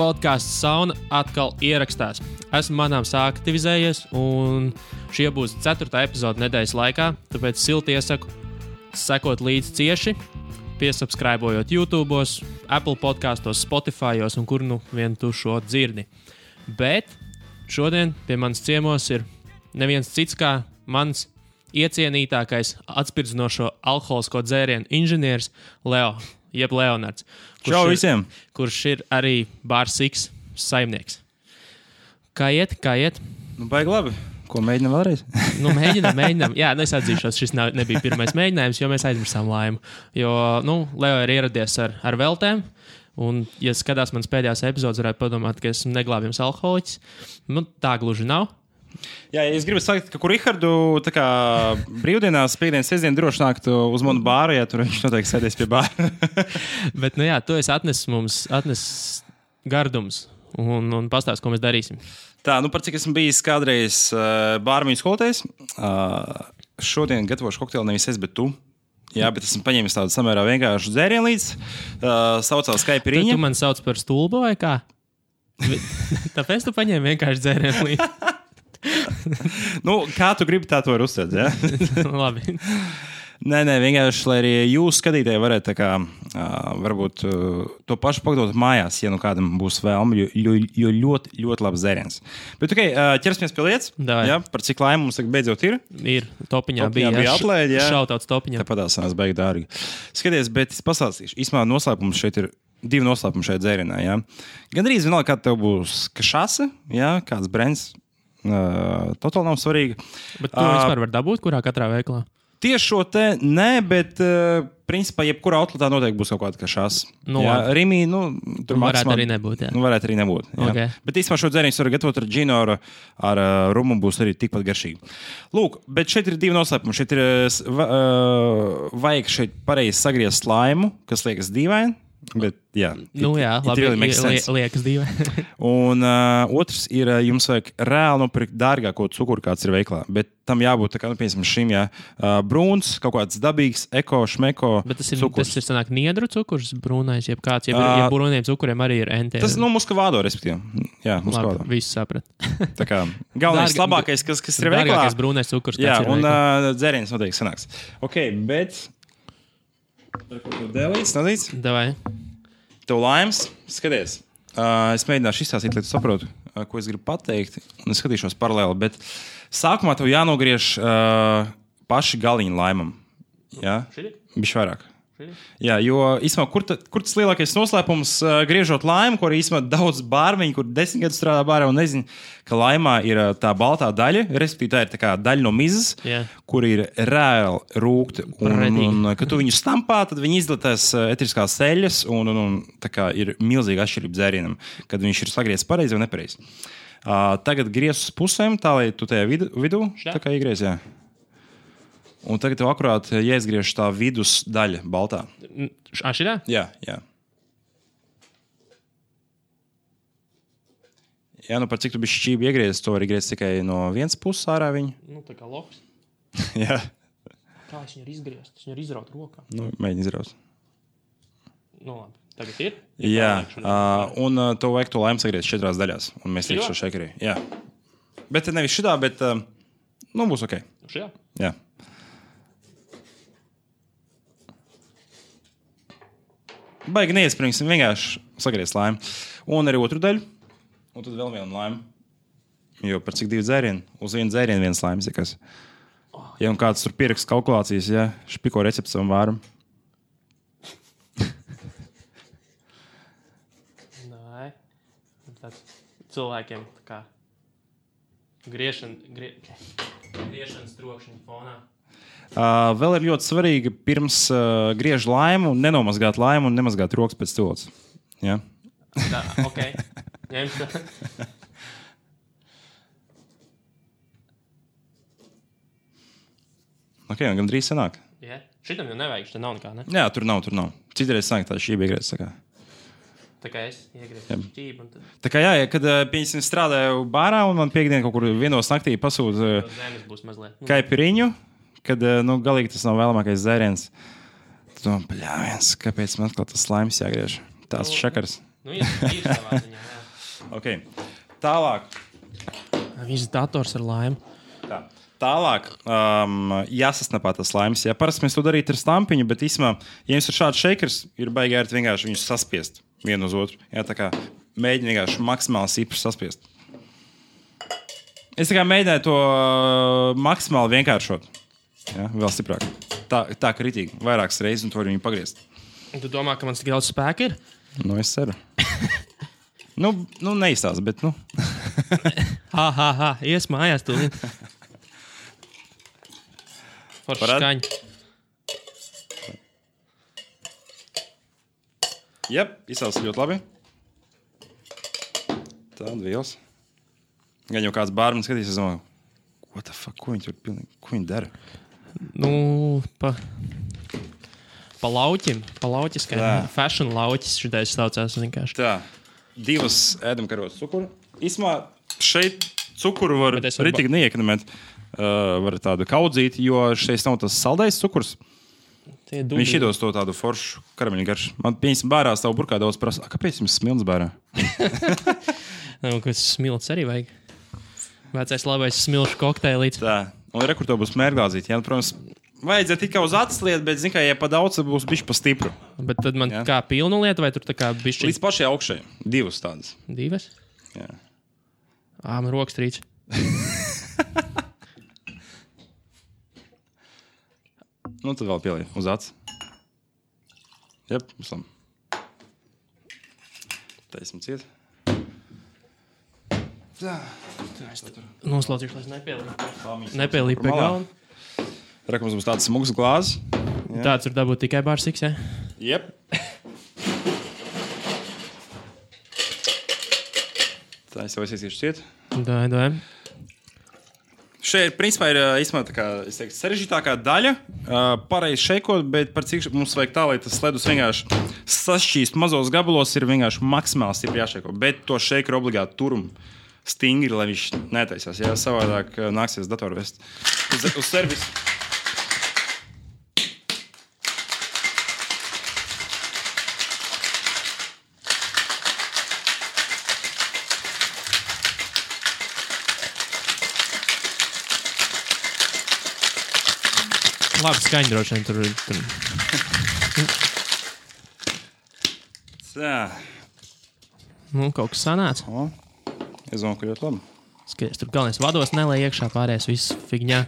Podcasts Sauna atkal ierakstās. Esmu manāms aktivizējies, un šie būs 4. epizode nedēļas laikā, tāpēc silti iesaku sekot līdzi cieši, piesubscribojot YouTube, Apple podkastos, Spotifyos un kur nu vien tu šo dzirdi. Bet šodien pie manis ciemos ir neviens cits kā mans iecienītākais atspirdzinošo alkoholisko dzērienu inženieris Leo, jeb Leonards. Čau visiem! Kurš ir arī Bar Six saimnieks. Kā iet? Nu, baigi labi. Ko mēģinām vēlreiz? Mēģinām. Jā, es atzīšos, šis nebija pirmais mēģinājums, jo mēs aizmirsām laimu. Jo, Leo ir ieradies ar veltēm, un, ja skatās manas pēdējās epizodes, varētu padomāt, ka esmu neglābjams alkoholiķis. Tā gluži nav. Jā, es gribu teikt, ka Rihardu brīvdienās, piekdienas, sestdien droši nākt uz manu bāru, ja tur viņš noteikti sēdēs pie bāra. Bet, tu esi atnesis gardums un pastāst, ko mēs darīsim. Tā, par cik esmu bijis kādreiz bārmiņu skolotājs, šodien gatavošu kokteili nevis es, bet tu. Jā, bet esmu paņēmis tādu samērā vienkāršu dzērienu līdz, saucās Kaipiriņa. Tu man sauc par stulbu vai kā? Tāpēc tu paņēmi vienkārši dzērienu līdz. Kā tu gribi, tā to var uztvert, jā? Labi. Nē, vienkārši, lai arī jūs skatītāji varētu varbūt to pašu pagatavot mājās, ja kādam būs vēlme, jo ļoti, ļoti labs dzēriens. Bet, ķersimies pie lietas. Jā, par cik laimi mums beidzot ir? Ir, topiņā bija atlaidi, jā. Šautauts topiņā. Tāpat sanās baigi dārgi. Skaties, bet es pastāstīšu. Īsmā noslēpums šeit ir 2 noslēpumi šajā dzērienā, jā. Gandrīz vienalga, kā tev būs kašase, jā, kāds brands. Totāli nav svarīgi. Bet tu vispār var dabūt, kurā katrā veiklā? Tieši šo te nē, bet principā jebkurā outletā noteikti būs kaut kāda kašās. Rimī, tur varētu arī nebūt, jā. Varētu arī nebūt, jā. Okay. Bet īstenībā šo dzērienu var gatavot ar džinu, ar rumu būs arī tikpat garšīgi. Lūk, bet šeit ir 2 noslēpumi. Šeit ir vajag šeit pareizi sagriezt slaimu, kas liekas dīvaini. Bet, jā, labi, liekas dīvaini. Un otrs ir, jums vajag reāli nopirkt dārgāko cukuru, kāds ir veiklā. Bet tam jābūt, piemēram, šim, brūns, kaut kāds dabīgs, eko, šmeko cukurs. Tas ir sanāk niedru cukurs, brūnais, jeb kāds, ja brūniem cukuriem arī ir NT. Tas, muskavādo, respektīvi. Jā, muskavādo. Labi, viss saprat. Tā kā galvenais, labākais, kas ir veiklā. Dārgākais brūnais cukurs, jā, un dzēriens noteikti sanāks. Ok, bet... Dēlīts, nadīts? Davai. Tev laimes, skaties. Es mēģināšu izstāstīt, lai tu saprotu, ko es gribu pateikt, un es skatīšos paralēli, bet sākumā tev jānogriež paši galiņi laimam. Jā? Bišķi vairāk. Jā, jo īsumā, kur tas lielākais noslēpums griežot laimu, ko arī īsumā daudz bārmeņi, kur 10 gadus strādā bārā un nezinu, ka laimā ir tā baltā daļa, respektīvi tā ir tā kā daļa no mizas, kur ir reāli rūkti. Un kad tu viņu stampā, tad viņi izdalās etriskās eļļas un tā kā ir milzīga atšķirība dzērienam, kad viņš ir sagriezts pareizi vai nepareizi. Tagad griez uz pusēm, tā lai tu tajā vidū, tā kā iegriez, jā. Un tagad tev akurāt jāizgriež tā vidus daļa baltā. Šitā? Jā. Jā, par cik tu bišķi šķībi iegriezis, to var iegriezis tikai no vienas puses ārā viņu. Tā kā loks. Jā. Kā es viņu ir izgriezt? Es viņu ir izraut rokā. Mēģini izraut. Labi. Tagad ir? Jā. Un to vajag to laimu sagriezt 4 daļās. Un mēs līdz šo šekarī. Jā. Bet nevis šitā, bet būs ok. Šajā? Jā. Baigi neiespringsim, vienkārši sagriezt laimu. Un arī otru daļu. Un tad vēl vienu laimu. Jo par cik 2 dzērienu? Uz vienu dzērienu 1 laimas. Ja un kāds tur pierakst kalkulācijas, špiko recepti savam vāram. Nē. Tāds cilvēkiem tā kā griešanas trokšņa fonā. Vēl ir ļoti svarīgi pirms griež laimu, nenomazgāt laimu un nemazgāt rokas pēc stūles. Jā? Tā, ok. Ņemšu. Ok, un gan drīz sanāk. Jā. Šitam jau nevajag, šitam nav nekā, ne? Jā, tur nav. Citreiz sanāk tā šķība iegriez, tā kā. Tā kā es iegriezu šķību. Tad... Tā kā kad pieņemsim strādāju bārā un man piekdien kaut kur 1 naktī pasūta Kaipiriņu, kad galīgi tas nav vēlamākais dzēriens. Tad domā, bļāviens, kāpēc man atkal tas slaims jāgriež? Tās šakars. Ir savā ziņā, jā. Okay. Tālāk. Viss dators ar laimu. Tā. Tālāk jāsasnapā tas laimes. Ja parasti mēs to darītu ar stampiņu, bet īstenībā, ja jums ir šāds šeikers, ir baigi ērti vienkārši viņus saspiest vienu uz otru. Jā, tā kā mēģini vienkārši maksimāli sīpri saspiest. Es tā kā mēģināju to maksimāli vienkāršot. Jā, vēl stiprāk. Tā kritīgi. Vairākas reizes un to viņu pagriezt. Tu domā, ka man tik daudz spēka ir? Nu, es ceru. Neizstāst, bet Ies mājās tūlīt. Forši skaņa. Jep, izsauc ļoti labi. Tāda vielas. Gan jau kāds bārmenis skatīs, es domāju, what the fuck, ko viņi tur pilnīgi, ko viņi dara? Pa lauķim, fashion lauķis šitais saucās vienkārši. Tā, 2 ēdamkarotas cukuru. Īsmā šeit cukuru var ritīgi neiekonomēt. Var tādu kaudzīt, jo šeit nav tas saldais cukurs. Viņš iedos to tādu foršu karameļu garšu. Man pieņemsim bārā savu burkā daudz prasa. Kāpēc jums smilts bārā? Kas smilts arī vajag. Vecais labais smilšu kokteilīts. Tā, un rekur to būs mērglāzīt. Jā, protams, vajadzētu tikai uz acis lietu, bet, zin kā, ja pa daudz, būs bišķi pa stipru. Bet tad man kā pilnu lietu, vai tur tā kā bišķi? Līdz pašai augšai. 2 tādas. 2? Jā. Man rokas trīc. Tad vēl pielī uz acis. Jep, visam. Taisim ciet. Tā. Noslaucīšu, lai es nepielīpu pie galva. Rekums būs tāds smugs glāzes. Tāds ir dabūt tikai bārsiks, jā? Jep. Tā, es jau aizsīšu ciet. Dai. Šeit, principā, ir īstenībā tā kā, es teiktu, sarežģītākā daļa. Pareizi šeikot, bet par cik mums vajag tā, lai tas ledus vienkārši sašķīst mazos gabalos, ir vienkārši maksimāli stipri jāšeiko. Bet to šeikeru obligāti turum stingri, lai viņš netaisās. Jā, savādāk nāksies datoru vest uz servisu. Labi, skaņa droši vien tur. Tā. Kaut kas sanāca. Es domāju, ka ļoti labi. Skaties, tur galvenais vados nelai iekšā, pārējais viss figņā.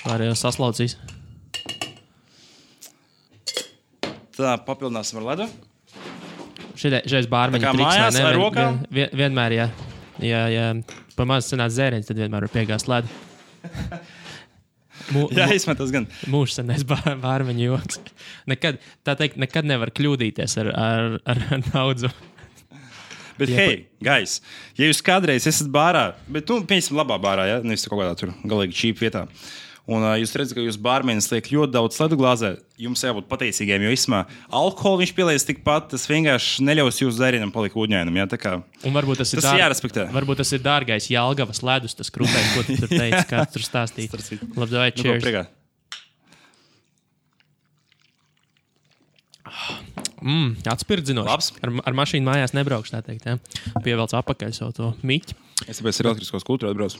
Pārējais saslaucīs. Tā, papildināsim ar ledu. Šeit bārmeņa triks. Mājās ar rokām? Vienmēr, jā. Ja pa maz sanāc zēriens, tad vienmēr var piegāst ledu. Jā, izmetas gan. Mūžs senais bārmeņu joks. Nekad nevar kļūdīties ar daudzu. Bet, hei, guys, ja jūs kādreiz esat bārā, bet, pieņemsim labā bārā, ja? Nevis kaut kādā tur galīgi čīpa vietā, un jūs redzat, ka jūs bārmenis liek ļoti daudz ledu glāzē, jums jābūt pateicīgiem, jo īsumā alkoholu viņš pielies tikpat, tas vienkārši neļaus jūsu dzērienam palikt ūdņainam, jā, tā kā. Un varbūt tas ir jārespektē. Varbūt tas ir dārgais Jelgavas ledus, tas krūtais, ko tu tur teici, kā tu tur stāstīji. Labi, vai cheers. Atspirdzinoši. Ar mašīnu mājās nebraukšu, tā teikt, jā. Pievelc apakaļ savu to miķi. Es tāpēc ar elektriskos kultūru atbraucu.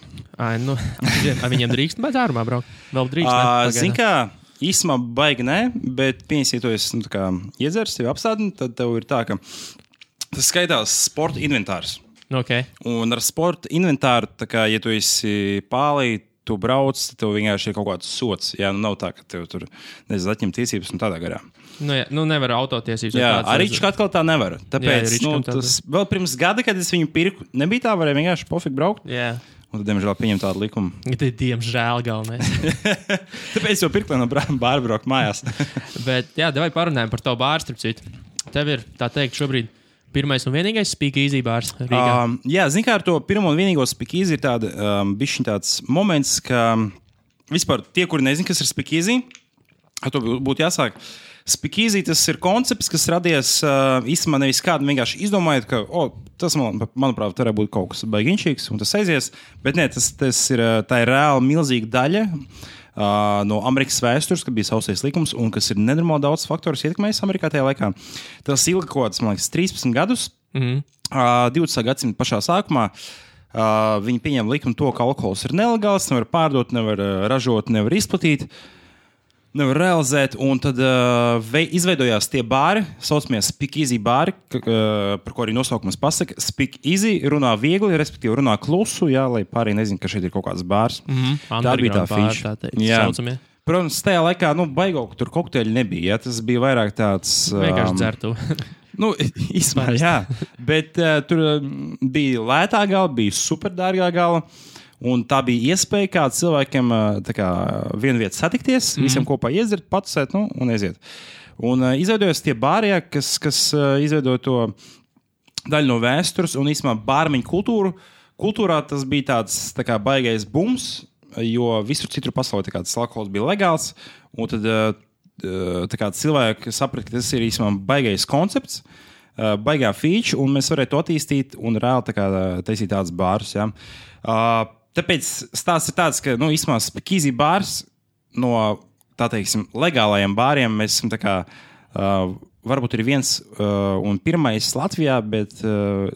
Viņiem drīkst bez ārumā braukt? Vēl drīkst? Zin kā, īsumā baigi nē, bet pieņemsim, ja tu esi iedzers, tevi apstādini, tad tev ir tā, ka tas skaitās sporta inventārs. Okay. Un ar sporta inventāru, tā kā, ja tu esi pālī, tu brauc, tev vienkārši ir kaut kāds sots. Jā, nav tā, ka tev tur atņem tiesības un tādā garā. Nevar autotiesības. Jā, arī Rička atkal tā nevar. Tāpēc, tas vēl pirms gada, kad es viņu pirku, nebija tā, varēja vienkārši pofīgi braukt. Jā. Un tad, diemžēl, pieņem tādu likumu. Diemžēl galvenais. Tāpēc jau pirku, lai no bāra braukt mājās. Bet, jā, davai parunājam par tavu bāru, starp citu. Tev ir, tā teikt, šobrīd pirmais un vienīgais speakeasy bārs Rīgā. Jā, zin kā ar to pirmo un vienīgo speakeasy ir tāda, bišķiņ tāds moments, ka vispār tie, kuri nezin, kas ir speakeasy, to būtu jāsāk. Speakeasy tas ir koncepts, kas radies īstenībā nevis kādu vienkārši izdomājot, ka tas, manuprāt, varētu būt kaut kas baigiņšīgs un tas aizies, bet nē, tā ir reāli milzīga daļa no Amerikas vēstures, kad bija sausais likums un kas ir nenormāli daudz faktorus ietekmējis Amerikā tajā laikā. Tas ilga kaut kāds, man liekas, 13 gadus. 20. gadsimta pašā sākumā viņi pieņem likumu to, ka alkohols ir nelegāls, nevar pārdot, nevar ražot, nevar izplatīt, nevar realizēt, un tad izveidojās tie bāri, saucamie Speak Easy bāri, par ko arī nosaukums pasaka. Speak Easy runā viegli, respektīvi runā klusu, jā, lai pārējie nezinu, ka šeit ir kaut kāds bārs. Tā bija tā feature. Saucamie. Protams, tajā laikā, baigo, ka tur kokteļi nebija, jā, tas bija vairāk tāds... Vienkārši dzertu. Īsmēr, jā, bet tur bija lētā gala, bija superdārgā gala, un tā bija iespēja kā cilvēkiem vienu vietu satikties, visiem kopā iedzert, patusēt, un aiziet. Un izveidojas tie bāri, kas izveidoja to daļu no vēstures, un īsmā bārmeņu kultūrā tas bija tāds baigais bums, jo visur citur pasaulē tas alkohols bija legāls, un tad cilvēki saprata, ka tas ir īstenībā baigais koncepts, baigā feature, un mēs varētu to attīstīt un reāli taisīt tādus bārus. Ja. Tāpēc stāsts ir tāds, ka īstenībā Speak Easy bārs no legālajiem bāriem mēs esam varbūt ir viens un pirmais Latvijā, bet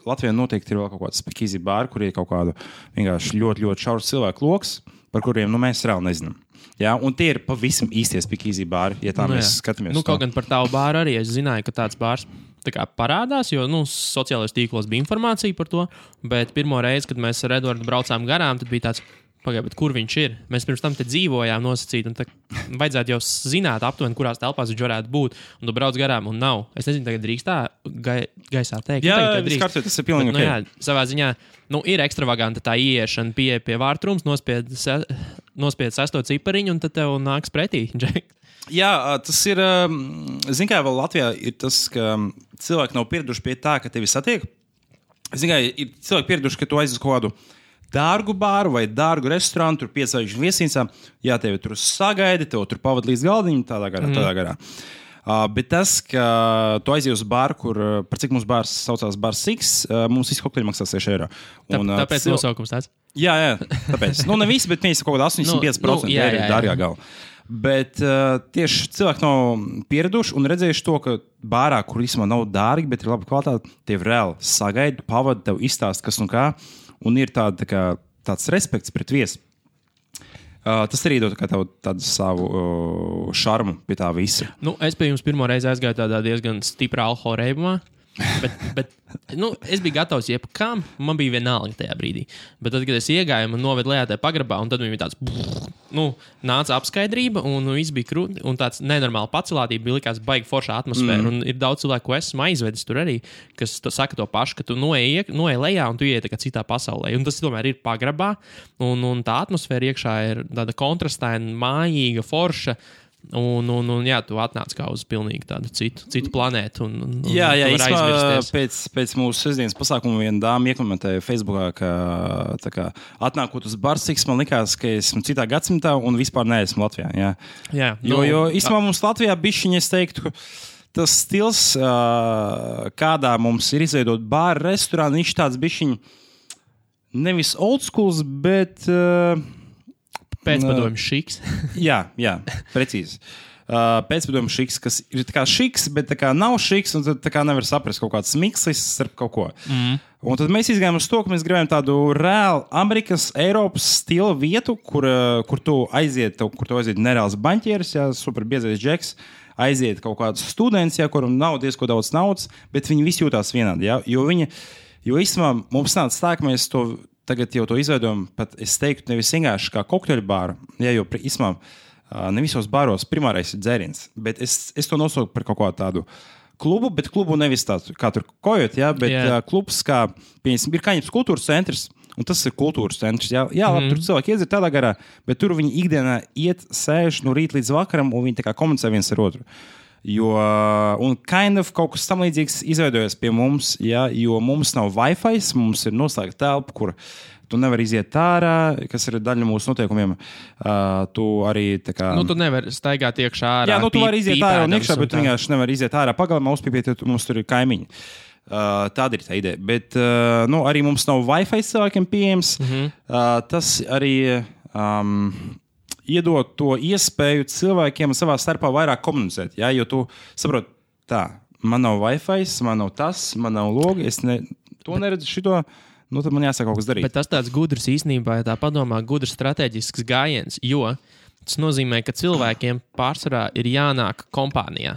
Latvijā noteikti ir vēl kaut kāds Speak Easy bāri, kur ir kaut kādu vienkārši ļoti, ļoti šaurs cilvēku loks, par kuriem mēs reāli nezinām. Jā, un tie ir pavisam īstie Speak Easy bāri, ja tā mēs skatāmies. Kaut gan par tavu bāru arī es zināju, ka tāds bārs parādās, jo sociālajos tīklos bija informācija par to, bet pirmo reizi, kad mēs ar Eduardu braucām garām, tad bija tāds, bet kur viņš ir? Mēs pirms tam te dzīvojām nosacīt, un vajadzētu jau zināt aptuveni, kurās telpās viņš varētu būt, un tu brauc garām, un nav. Es nezinu, tagad drīkst tā gaisā teikt. Jā, tas ir pilnīgi ok. Jā, savā ziņā, ir ekstravaganta tā ieiešana pie vārtrums, nospied 6. cipariņu, un tad tev nāks pretī, Džek. Jā, tas ir, kā vēl Latvijā ir tas, ka cilvēki nav pieraduši pie tā, ka tevi satiek. Kā ir cilvēki pieraduši, ka tu aizies kaut kādu dārgu bāru vai dārgu restorānu, tur 5 zvaigžņu viesnīcā, jā, tevi tur sagaida, tev tur pavada līdz galdiņam, tādā garā. Bet tas, ka tu aizies uz bāru, par cik mums bārs saucās Bars Six, mums visi kokteļi maksā 6 eiro. Tāpēc nosaukums tāds? Jā, tāpēc. Ne visi, bet mēs kaut kādā 85% ir dārgā gala. Bet tieši cilvēki nav pieraduši un redzējuši to, ka bārā, kur īstenībā nav dārgi, bet ir laba kvalitāte, tev reāli sagaida, pavada, tev izstāst, kas un kā. Un ir tāds respekts pret viesi. Tas arī dod tādu savu šarmu pie tā visa. Es pie jums pirmo reizi aizgāju tādā diezgan stiprā alkohola reibumā. Bet es biju gatavs jebkam, man bija vienalga tajā brīdī. Bet tad, kad es iegāju, man novedu lejā tajā pagrabā, un tad bija tāds, nāca apskaidrība, un viss bija krūti, un tāds nenormāli pacelātība bija likās baigi foršā atmosfēra. Un ir daudz cilvēku, ko esmu aizvedis tur arī, kas saka to pašu, ka tu noej lejā, un tu ieiet citā pasaulē. Un tas tomēr ir pagrabā, un tā atmosfēra iekšā ir tāda kontrastaina, mājīga, forša. Un tu atnāc kā uz pilnīgi tādu citu planētu. Jā, pēc mūsu sestdienas pasākuma viena dāma iekomentēja Facebookā, ka atnākot uz Bars Six, man likās, ka esmu citā gadsimtā un vispār neesmu Latvijā. Jā. Jo īstenībā mums Latvijā bišķiņi, es teiktu, tas stils, kādā mums ir izveidot bāru, restorānu, viņš tāds bišķiņi nevis old schools, bet... Pēcpadomju šiks. jā, precīzi. Pēcpadomju šiks, kas ir tā kā šiks, bet tā kā nav šiks, un tad tā kā nevar saprast kaut kāds mikslis starp kaut ko. Un tad mēs izgājām uz to, ka mēs gribējām tādu reāli Amerikas, Eiropas stila vietu, kur tu aiziet nereāls baņķieris, super biezais džeks, aiziet kaut kāds students, kuram nav diezko daudz naudas, bet viņi visi jūtās vienādi, jo īstenībā mums nāca tā, ka mēs to tagad jau to izveidojam, pat es teiktu, nevis vienkārši kā kokteļu bāru, jo īstenībā ne visos bāros primārais ir dzēriens, bet es to nosauku par kaut kādu tādu klubu, bet klubu nevis tādu, kā tur kojot, bet klubs, kā, piemēram, ir Kaņepes kultūras centrs, un tas ir kultūras centrs, labi, tur cilvēki iedzir tādā garā, bet tur viņi ikdienā iet, sēž no rīta līdz vakaram, un viņi tā kā komunicē viens ar otru. Un kaut kas tam līdzīgs izveidojas pie mums, jo mums nav Wi-Fi, mums ir noslēgta telpa, kur tu nevari iziet ārā, kas ir daļa no mūsu noteikumiem. Tu arī tā kā... tu nevari staigāt iekšā ārā. Jā, tu vari iziet ārā un iekšā, bet tu vienkārši nevari iziet ārā pagalmā, uzpīpēt, jo mums tur ir kaimiņi. Tāda ir tā ideja. Bet arī mums nav Wi-Fi cilvēkiem pieejams. Tas arī... iedot to iespēju cilvēkiem savā starpā vairāk komunicēt. Jo tu saproti, man nav Wi-Fi, man nav tas, man nav logi, to neredzu šito. Nu, tad man jāsaka kaut kas darīt. Bet tas tāds gudrs īstenībā, ja tā padomā, gudrs strateģisks gājiens, jo tas nozīmē, ka cilvēkiem pārsvarā ir jānāk kompānijā.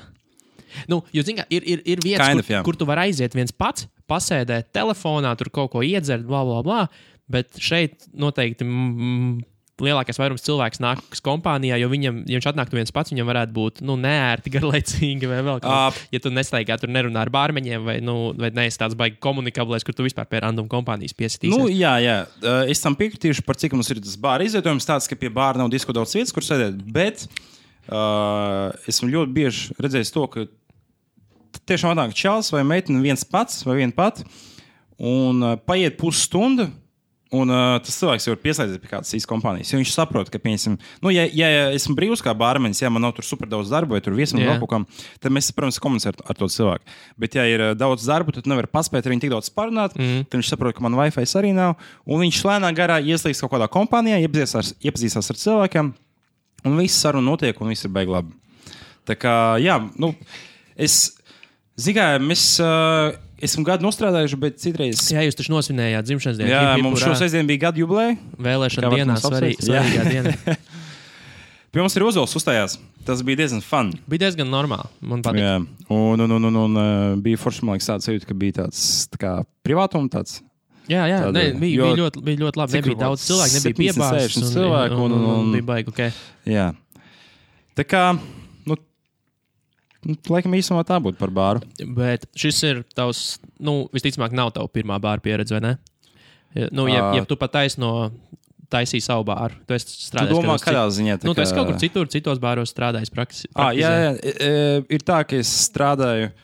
Nu, jo, zin kā, ir vietas, kur tu vari aiziet viens pats, pasēdēt telefonā, tur kaut ko iedzert, bla, bla, bla, bet šeit noteikti lielākais vairums cilvēks nāks kompānijā, jo ja viņš atnāktu viens pats, viņam varētu būt neērti, garlaicīgi vai vēl kaut kā. Ja tu nestaigā, tur nerunā ar bārmeņiem vai neesi tāds baigi komunikablēs, kur tu vispār pie random kompānijas piesitīsies. Nu, jā. Es tam piekritīšu par cik mums ir tas bāra izvietojums tāds, ka pie bāra nav disko daudz vietas, kur sēdēt, bet esmu ļoti bieži redzējis to, ka tiešām atnāk čals vai meitene viens pats vai viena pat un paiet pusstunda. Un tas cilvēks jau ir pieslēdzies pie kādas īstas kompānijas. Jo viņš saprot, ka, piemēram, ja esmu brīvs kā bārmenis, ja man nav tur super daudz darba vai tur viesam vēl kaut kam, tad mēs, protams, komunicējam ar to cilvēku. Bet, ja ir daudz darba, tad nevar paspēt ar viņu tik daudz parunāt, tad viņš saprot, ka man Wi-Fi arī nav. Un viņš lēnā garā ieslīgs kaut kādā kompānijā, iepazīstās ar cilvēkiem, un viss saruna notiek, un viss ir baigi labi. Tā kā, jā, esmu gadu nostrādājuši, bet citreiz... Jā, jūs taču nosvinējāt dzimšanas dienu. Jā, mums šo sestdienu bija gadu jubileja. Vēlēšana dienā, svarīgā diena. Pie mums ir Ozols uzstājās. Tas bija diezgan fun. Bija diezgan normāli, man patīk. Jā, un bija forši, man liekas, tāds sajūta, ka bija tāds tā kā privātuma tāds. Jā, bija ļoti labi. Nebija daudz cilvēku, nebija piebāzes. Un bija baigi, ok. Jā. Tā kā... Laikam īsumā tā būtu par bāru. Bet šis ir tavs, visticamāk, nav tava pirmā bāra pieredze, vai ne? Ja tu pat taisīji savu bāru, tu esi strādājis. Tu domā, kādā ziņā? Tu esi kaut kur citos bāros strādājis praktizē. Jā. Ir tā, ka es strādāju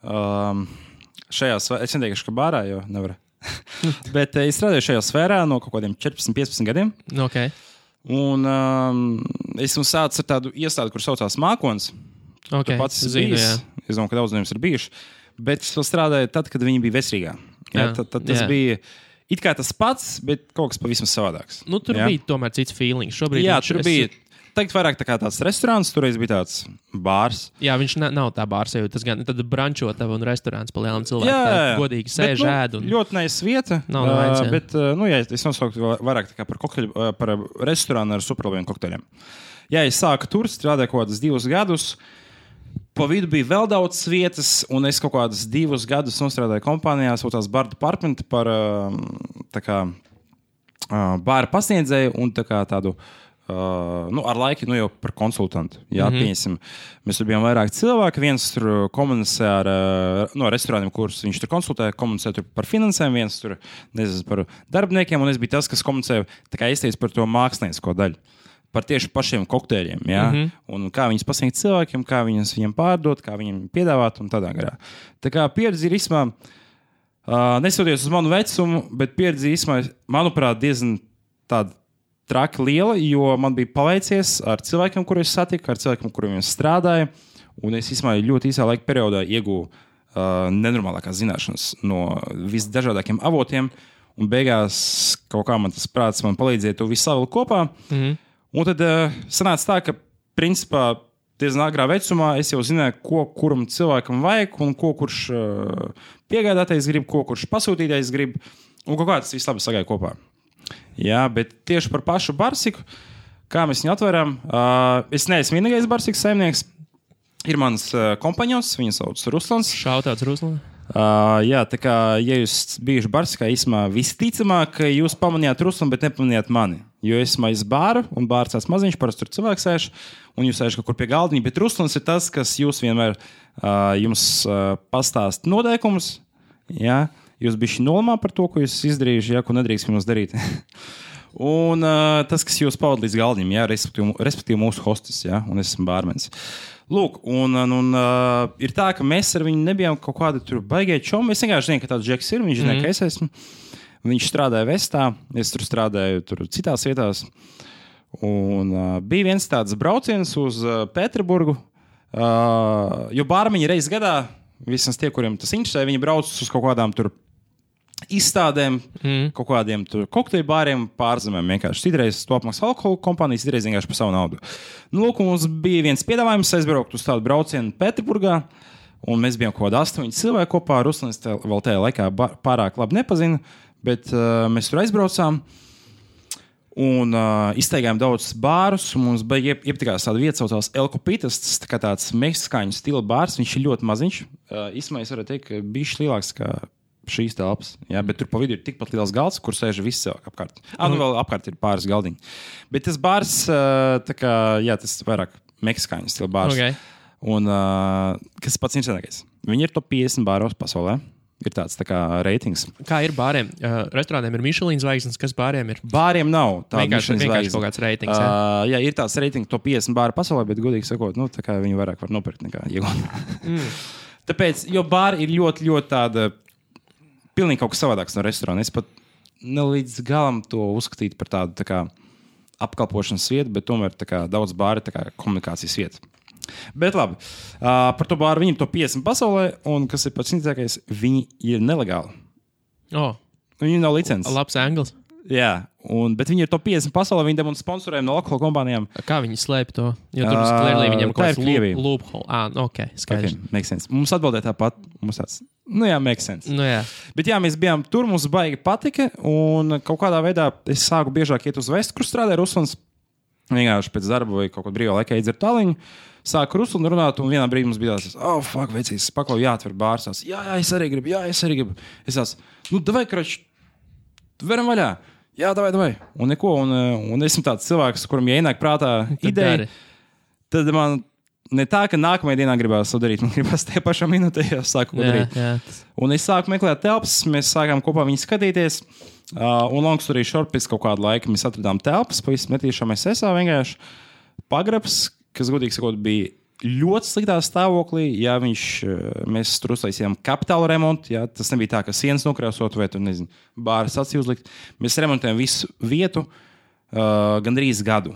šajā sfērā. Es neteikšu, ka bārā, jo nevar. Bet es strādāju šajā sfērā no kaut kādiem 14-15 gadiem. Okay. Un esmu sācis ar tādu iestādi, kur saucās Mākons. Okay, pats zinu, es domāju, ka daudz no jums ir bijuši. Bet es vēl strādāju tad, kad viņi bija veselīgā. Tad tas bija it kā tas pats, bet kaut kas pavisam savādāks. Tur bija tomēr cits feelings. Šobrīd tur bija teikt vairāk tā kā tāds restorāns, toreiz bija tāds bārs. Jā, viņš nav tā bārs, tas gan tad brančotava un restorāns pa lielām cilvēkiem. Jā. Godīgi sēž ēd. Ļoti nice vieta. Nav nevajag. Bet, es nosauktu vairāk tā kā par restorānu ar superlabiem kokteļiem. Jā, es sāku tur, strādāju kaut kādus 2 gadus. Pa vidu bija vēl daudz vietas, un es kaut kādus 2 gadus nostrādāju kompānijā, saucās Bar Department par bāra pasniedzēju un tā kā tādu, ar laiku jau par konsultantu. Jā, pieņemsim. Mēs tur bijām vairāk cilvēki, viens tur komunicē ar restorāniem, kurus viņš tur konsultē, komunicē tur par finansēm, viens tur nezinu par darbiniekiem, un es biju tas, kas komunicēja, tā kā izteica par to māksliniecisko daļu. Par tieši pašiem kokteļiem, jā, un kā viņus pasniegt cilvēkiem, kā viņiem pārdot, kā viņiem piedāvāt un tādā garā. Tā kā pieredze ir īsumā, nesoties uz manu vecumu, bet pieredze īsumā, manuprāt, diezgan tāda traki liela, jo man bija paveicies ar cilvēkiem, kurus es satiku, ar cilvēkiem, kuriem es strādāju, un es īsumā ļoti īsā laika periodā iegūju nenormālākās zināšanas no visdažādākiem avotiem, un beigās kaut kā man tas prāts man palīdzēja to visu savilkt kopā. Un tad sanāca tā, ka principā diezgan agrā vecumā es jau zināju, ko kuram cilvēkam vajag un ko kurš piegādātais grib, ko kurš pasūtītais grib, un kaut kā tas viss labi sagāja kopā. Jā, bet tieši par pašu barsiku, kā mēs viņu atveram, es neesmu vienīgais barsikas saimnieks. Ir mans kompaņons, viņu sauc Ruslans. Šautauts Ruslans. Jā, tā kā, ja jūs bijuši barsikā, īsumā visticamāk, ka jūs pamanījāt Ruslanu, bet nepamanījāt mani. Jo es maisu bāru, un bārs tāds maziņš, parasti tur cilvēks sēž, un jūs sēž kaut kur pie galdiņa, bet Ruslans ir tas, kas jūs vienmēr jums pastāst noteikumus, jā, jūs bišķi nolamā par to, ko jūs izdarījuši, jā, ko nedrīkst jums darīt. Un tas, kas jūs pavada līdz galdiņam, jā, respektīvi mūsu hostis, jā, un es esmu bārmenis. Lūk, un ir tā, ka mēs ar viņu nebijām kaut kādi tur baigie čomi. Es vienkārši zinu, ka tāds džeks ir, viņš zina, ka es esmu. Viņš strādāja Vestā, es tur strādāju tur citās vietās. Un bija viens tāds brauciens uz Pēterburgu, jo bārmeņi reiz gadā, vismaz tie, kuriem tas interesē, viņi brauc uz kaut kādām tur izstādēm, kaut kādiem kokteļu bāriem pārzemēm vienkārši. Citreiz to apmaksā alkohola kompānijas, citreiz vienkārši par savu naudu. Nu, lūk, mums bija viens piedāvājums aizbraukt uz tādu braucienu Pēterburgā, Un mēs bijām kaut kādi 8 cilvēki kopā. Ruslans vēl tajā laikā pārāk labi nepazina, bet mēs tur aizbraucām. Un izteigājām daudz bārus. Mums bija iepatikās tāda vieta, saucās El Copitas. Tas tā kā tāds meksikāņu stila bārs. Viņš ir ļoti maziņš. Īsumā es varu teikt, ka bišķi lielāks kā šīs telpas. Jā, bet tur pa vidu ir tikpat liels galds, kur sēž visi cilvēki apkārt. Nu vēl apkārt ir pāris galdiņi. Bet tas bārs, tā kā, jā, tas vairāk meksikāņu stila bārs. Okay. Un kas pats interesantākais? Viņi ir top 50 bāros pasaulē. Ir tāds tā kā reitings. Kā ir bāriem? Restorāniem ir Michelin zvaigznes, kas bāriem ir? Bāriem nav tāda vienkārši kaut kāds reitings. Jā, ir tāds reitings top 50 bāru pasaulē, bet godīgi sakot, nu, tā kā viņi vairāk var nopirkt nekā iegūt. Tāpēc, jo bāri ir ļoti, ļoti tāda pilnīgi kaut kas savādāks no restorāna. Es pat nelīdz galam to uzskatītu par tādu tā kā apkalpošanas vietu, bet tomēr tā kā daudz bāri tā kā komunikācijas vieta. Bet labi, par to bāru viņi ir to 50 pasaulē, un kas ir pats interesantākais, viņi ir nelegāli. Viņi nav licences. Labs anglis. Jā, bet viņi ir to 50 pasaulē, viņi demonstrē sponsoriem no alkohola kompānijām. Kā viņi slēp to? Jo tur klērlī viņiem kaut kāds loophole. Ok, skaidrs. Okay, makes sense. Mums atbildēja tāpat. Mums tāds, makes sense. Jā. Bet jā, mēs bijām tur, mums baigi patika, un kaut kādā veidā es sāku biežāk iet uz vestu, kur strādāja Ruslans. Vienkārši pēc darba vai kaut ko brīvā laikā iedzert taliņu. Sāku Ruslanu runāt, un vienā brīdī mums bija tāds, fuck, vecīs, paklau, jāatver bārs. Jā, es arī gribu. Es tās, davai, krač, veram vaļā. Jā, davai. Un neko, un esmu tāds cilvēks, kuram ienāk prātā ideja. Tad man ne tā, ka nākamajā dienā gribās to darīt, man gribās tajā pašā minūtē sāku ko darīt. Jā. Un es sāku meklēt telpas, mēs sākām kopā viņu skatīties. Un long story short, pēc kaut kāda laika mēs atradām telpas, pavisam netīšām SSA vienkārši pagrabs, kas, godīgi sakot, bija ļoti sliktā stāvoklī. Jā, mēs tur uztaisījām kapitāla remontu. Jā, tas nebija tā, ka sienas nokrāsot vai tur, nezinu, bāras acī uzlikt. Mēs remontējām visu vietu gandrīz gadu.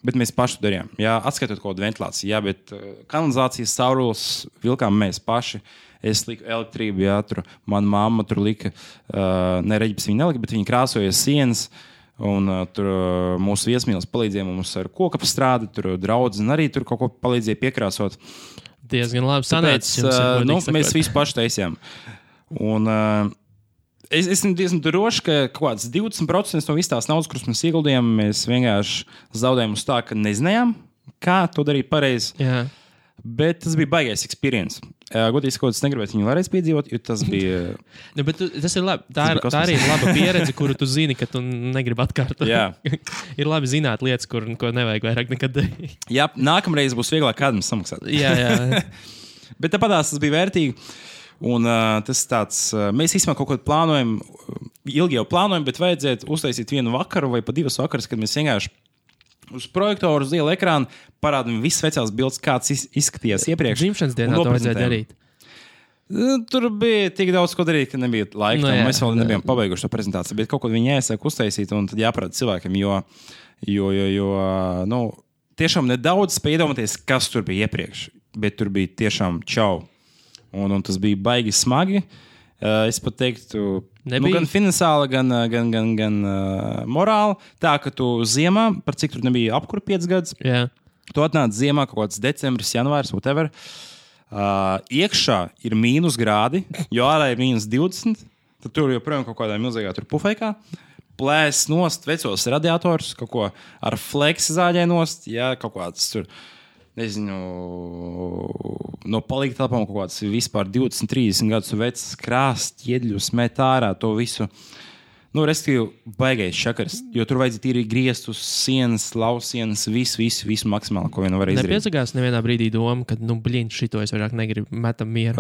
Bet mēs paši to darījām. Jā, atskaitot kaut kādu ventilāciju. Jā, bet kanalizācijas caurules vilkām mēs paši. Es liku elektrību, jā, tur mana mamma tur lika, ne reģipes viņa nelika, bet viņa krāsoja sienas. Un tur mūsu viesmīlis palīdzēja mums ar koku apstrādi, tur draudzene arī tur kaut ko palīdzēja piekrāsot. Diezgan labi sanācis. Mēs visu paši taisījām. Un es esmu diezgan drošs, ka kaut kāds 20% no visas tās naudas, kuras mēs ieguldījām, mēs vienkārši zaudējām uz tā, ka nezinājām, kā to darīt pareizi. Jā. Bet tas bija baigais experience. Godīgi sakot, es negribētu viņu vēlreiz piedzīvot, jo tas bija. Tas ir labi. Tā arī ir laba pieredze, kuru tu zini, ka tu negribi atkārtot. Ir labi zināt lietas, ko nevajag vairāk nekad darīt. Jā, nākamreiz būs vieglāk kādam samaksāt. Jā. Bet tāpatās tas bija vērtīgi. Un tas tāds, mēs īstenībā kaut ko plānojam, ilgi jau plānojam, bet vajadzētu uztaisīt vienu vakaru vai pa 2 vakarus, kad mēs vienkārši uz projektoru, uz liela ekrāna parādām visas vecās bildes, kāds izskatījās iepriekš. Dzimšanas dienā to vajadzēja darīt. Tur bija tik daudz, ko darīt, ka nebija laika. Mēs vēl nebijām pabeiguši to prezentāciju, bet kaut ko viņi jāiesāk uztaisīt un tad jāparāda cilvēkiem, jo tiešām nedaudz spēj iedomāties, kas tur bija iepriekš, bet tur bija tiešām čau. Un tas bija baigi smagi. Es pat teiktu, gan finansiāli, gan morāli. Tā, ka tu ziemā, par cik tur nebija apkura 5 gadus, tu atnāc ziemā kaut kāds decembris, janvārs, whatever. Iekšā ir mīnus grādi, jo ārā ir mīnus 20. Tad tur joprojām kaut kādā milzīgā pufeikā. Plēs nost vecos radiatorus, kaut ko ar fleksi zāģē nost, kaut kāds tur. Nezinu, no palīga telpām kaut kāds vispār 20-30 gadus vecs krāsts, ķiedļus, met ārā to visu. Respektīvi, baigais šakars, jo tur vajadzēja tīri griezt uz sienas, lausienas, visu maksimāli, ko vien var izdarīt. Nepiesakās nevienā brīdī doma, ka, šito es vairāk negribu, metam mieru.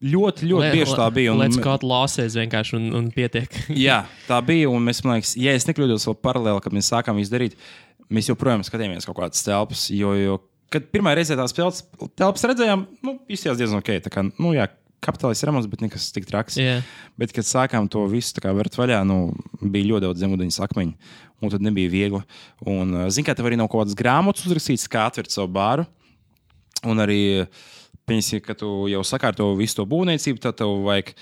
Ļoti bieži tā bija. Let's cut losses vienkārši un pietiek. Jā, tā bija, un mēs, man liekas, ja es nekļūdos vēl paralēli, kad mēs sākām izdarīt, mēs joprojām skatījāmies kaut kādas telpas, jo kad pirmā reize tās telpas redzējām, izskatījās diezgan ok. Tā kā, kapitālis remonts, bet nekas tik traks. Yeah. Bet, kad sākām to visu vērt vaļā, bija ļoti daudz zemūdeņas akmeņu, un tad nebija viegli. Un, zini, kā tev arī nav kaut kādas grāmatas uzrakstītas, kā atvērt savu bāru. Un arī, pieņemsim, ka tu jau sakārto visu to būvniecību, tad tev vajag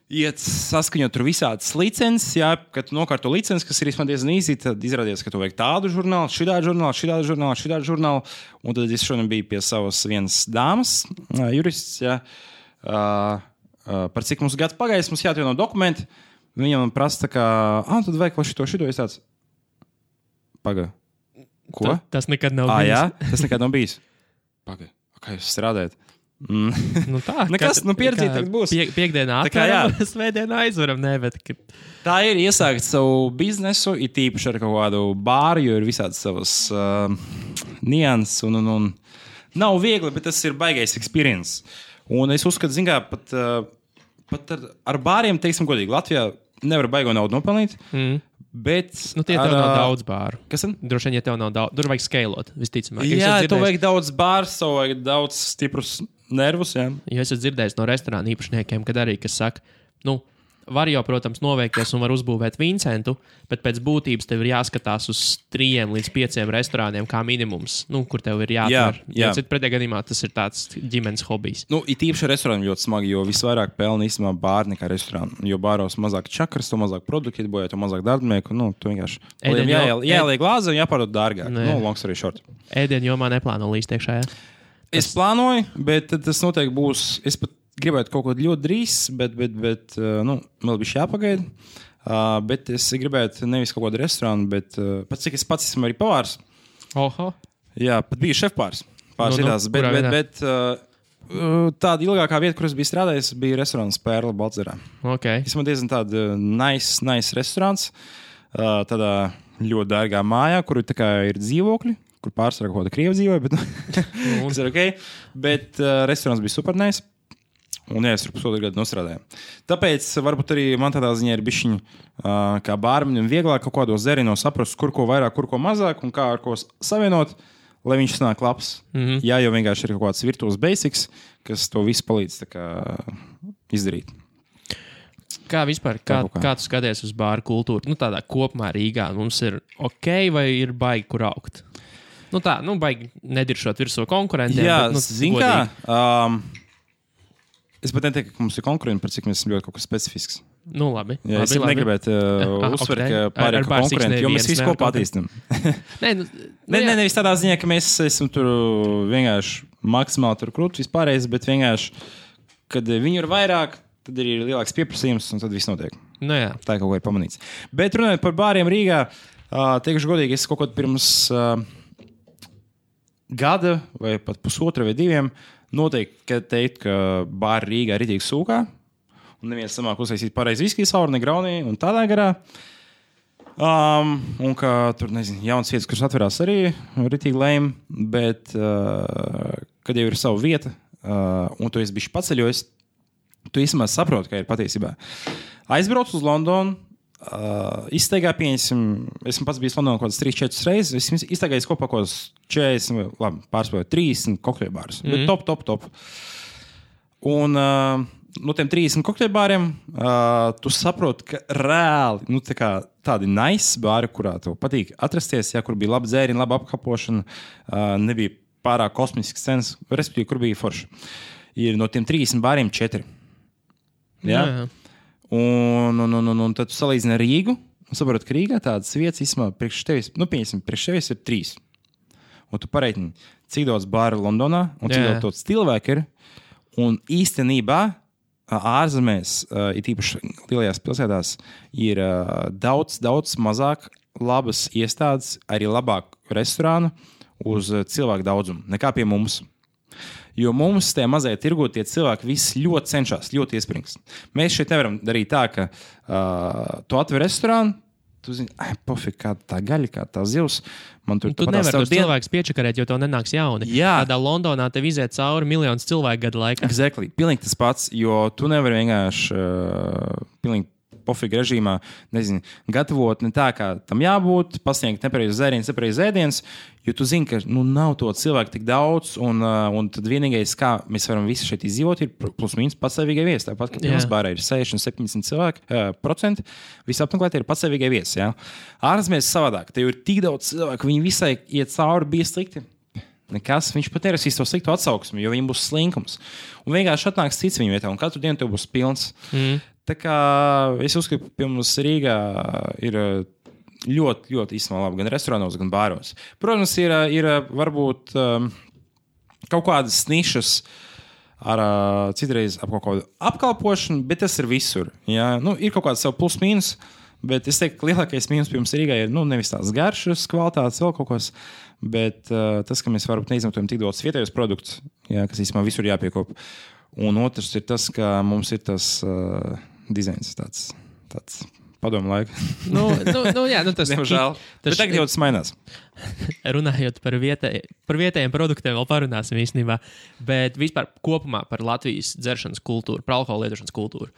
iet saskaņot tur visādas licences, jā, kad tu nokārto licences, kas ir diezgan īsi, tad izrādījās, ka tu vajag tādu žurnālu, šitādu žurnālu, un tad es šodien biju pie savas vienas dāmas, jurists, jā, par cik mums gads pagājis, mums jāatvieno dokumenti, viņam man prasa tā kā, tad vajag vēl šito, es tāds, paga, ko? Tas nekad nav bijis. Jā, tas nekad nav bijis. Paga, kā jūs strādājat? Nu tā, nekas, pieredzītāk būs. Piekdienā atveram, svētdienā aizveram, Tā ir iesākt savu biznesu, it īpaši ar kaut kādu bāru, jo ir visādi savas nianses un nav viegli, bet tas ir baigais experience. Un es uzskatu, zin kā, pat ar bāriem, teiksim godīgi, Latvijā nevar baigo naudu nopelnīt, bet... Nu tie tev nav daudz bāru. Kas tad? Droši vien, ja tev nav daudz, tur vajag skeilot, visticamāk. Jā, tev vajag daudz bārs, tev vajag daudz stiprus nervus, jā. Jo es esmu dzirdējis no restorāna īpašniekiem, kad arī, kas saka, var jau, protams, noveikties un var uzbūvēt Vincentu, bet pēc būtības tev ir jāskatās uz 3 līdz 5 restorāniem kā minimums, kur tev ir jāatver. Jā. Jo pretējā gadījumā tas ir tāds ģimenes hobijs. It īpaši restorāni ļoti smagi, jo visvairāk pelna īstenībā bāri nekā restorāni. Jo bāros mazāk čakras, to mazāk produkti ietbojāt, to mazāk darbnieku. Tu vienkārši jāieliek glāze un jāpārdod dārgāk. Long story short. Ēdienu jomā neplāno līst iekšā, jā? Es plānoju, bet tas noteikti būs... Es pat gribētu kaut ko ļoti drīz, bet vēl bija jāpagaida. Bet es gribētu nevis kaut kādu restorānu, bet pats cik es pats esmu arī pavārs. Oho. Jā, pat biju šefpārs. Bet tāda ilgākā vieta, kur es biju strādājis, bija restorāns Pērla Baltzerā. Okay. Es man diezgan tāda nice restorāns, tādā ļoti dārgā mājā, kur ir dzīvokļi, kur pārsvarā kaut kāda krievu dzīvoja, bet kas ir ok. Bet restorāns bija super nice. Un jā, es tur pusotru gadu nostrādāju. Tāpēc varbūt arī man tādā ziņā ir bišķiņi kā bārmenim vieglāk kaut kādos zerinos saprast, kur ko vairāk, kur ko mazāk un kā ar ko savienot, lai viņš sanāk labs. Jā, jo vienkārši ir kaut kāds virtuos basics, kas to visu palīdz tā kā izdarīt. Kā vispār, kā tu skaties uz bāru kultūru? Tādā kopumā Rīgā mums ir ok vai ir baigi, kur augt? Baigi nediršot virsū konkurentiem. Jā, bet, zin kā... Es pat neteiktu, ka mums ir konkurenti, par cik mēs esam ļoti kaut kas specifisks. Labi. Jā, es negribētu uzsvert, ka pārējie konkurenti, jo mēs visu kopā attīstam. Nevis tādā ziņā, ka mēs esam tur vienkārši maksimāli tur krūti vispārējais, bet vienkārši, kad viņi ir vairāk, tad ir lielāks pieprasījums un tad viss notiek. Jā. Tā kaut ko ir pamanīts. Bet runājot par bāriem Rīgā, teikšu godīgi, es kaut ko pirms gada vai pat pusotra vai 2 noteikti teikt, ka bāri Rīgā ir ritīgi sūkā un neviens samāk uztaisīt pareizi viskiju sauru, ne graunī un tādā garā. Un ka tur, jaunas vietas, kuras atverās arī ritīgi lēm, bet kad jau ir sava vieta un tu esi bišķi paceļojis, tu īstenībā saproti, ka ir patiesībā. Aizbrauc uz Londonu, izsteigā pieņemsim, esmu pats bijis Londonā kaut kādas 3-4 reizes, esmu izsteigājis kopā kaut kādas 40, labi, pārspēju 30 kokteļbārus, bet top. Un no tiem 30 kokteļbāriem tu saproti, ka reāli, tādi nice bāri, kurā tev patīk atrasties, kur bija laba dzēriņa, laba apkapošana, nebija pārāk kosmisks cenas, respektīvi, kur bija forši. Ir no tiem 30 bāriem 4. Jā. Un tad tu salīdzini ar Rīgu un saproti, ka Rīgā tādas vietas īstenībā priekš tevis, priekš tevis ir 3. Un tu pareitini, cik daudz bāru Londonā un cik daudz cilvēku ir. Un īstenībā ārzemēs, it īpaši lielajās pilsētās, ir daudz mazāk labas iestādes, arī labāk restorānu uz cilvēku daudzumu nekā pie mums. Jo mums tajā mazajā tirgu tie cilvēki visi ļoti cenšas, ļoti iespringst. Mēs šeit nevaram darīt tā, ka tu atver restorānu, tu zini, pofik, kā tā gaļa, kā tā zivs. Tu nevari tos cilvēkus piečakarēt, jo tev nenāks jauni. Jā. Tādā Londonā tev iziet cauri miljonus cilvēku gadu laikā. Exactly. Pilnīgi tas pats, jo tu nevari vienkārši pilnīgi pofīgi režīmā, gatavot ne tā, kā tam jābūt, pasniegt nepareizu zērienus, nepareizu ēdienus, jo tu zini, ka nav to cilvēku tik daudz, un tad vienīgais, kā mēs varam visi šeit izdzīvot, ir plus mīnus patsavīgai viesi. Tāpat, ka pirms bārā ir 60-70% visapmeklētie ir patsavīgai viesi. Ja? Ārzemēs savādāk, te ir tik daudz cilvēku, viņi visai iet cauri, bija slikti. Nekas, viņš pat nerasīs to sliktu atsauksmi, jo viņam būs slinkums. Un vienkārši atnāks cits viņa vietā, un katru dienu tev būs pilns. Tā kā es uzskatu, ka pie mums Rīgā ir ļoti, ļoti īstenībā labi gan restorānos, gan bāros. Protams, ir varbūt kaut kādas nišas ar citreiz ap kaut kādu apkalpošanu, bet tas ir visur. Ja? Nu, ir kaut kāds savu plus-mínus, bet es teiktu, ka lielākais mīnus pie mums Rīgā ir nevis tās garšas, kvalitātes, vēl kaut kas, bet tas, ka mēs varbūt neizmantojam tik daudz vietējos produktus, ja, kas īstenībā visur jāpiekop. Un otrs ir tas, ka mums ir tas dizains tāds padomu laika. Tas diemžēl. Bet tagad jau tas mainās. Runājot par vietējiem produktiem, vēl parunāsim īstenībā, bet vispār kopumā par Latvijas dzeršanas kultūru, par alkohola lietošanas kultūru.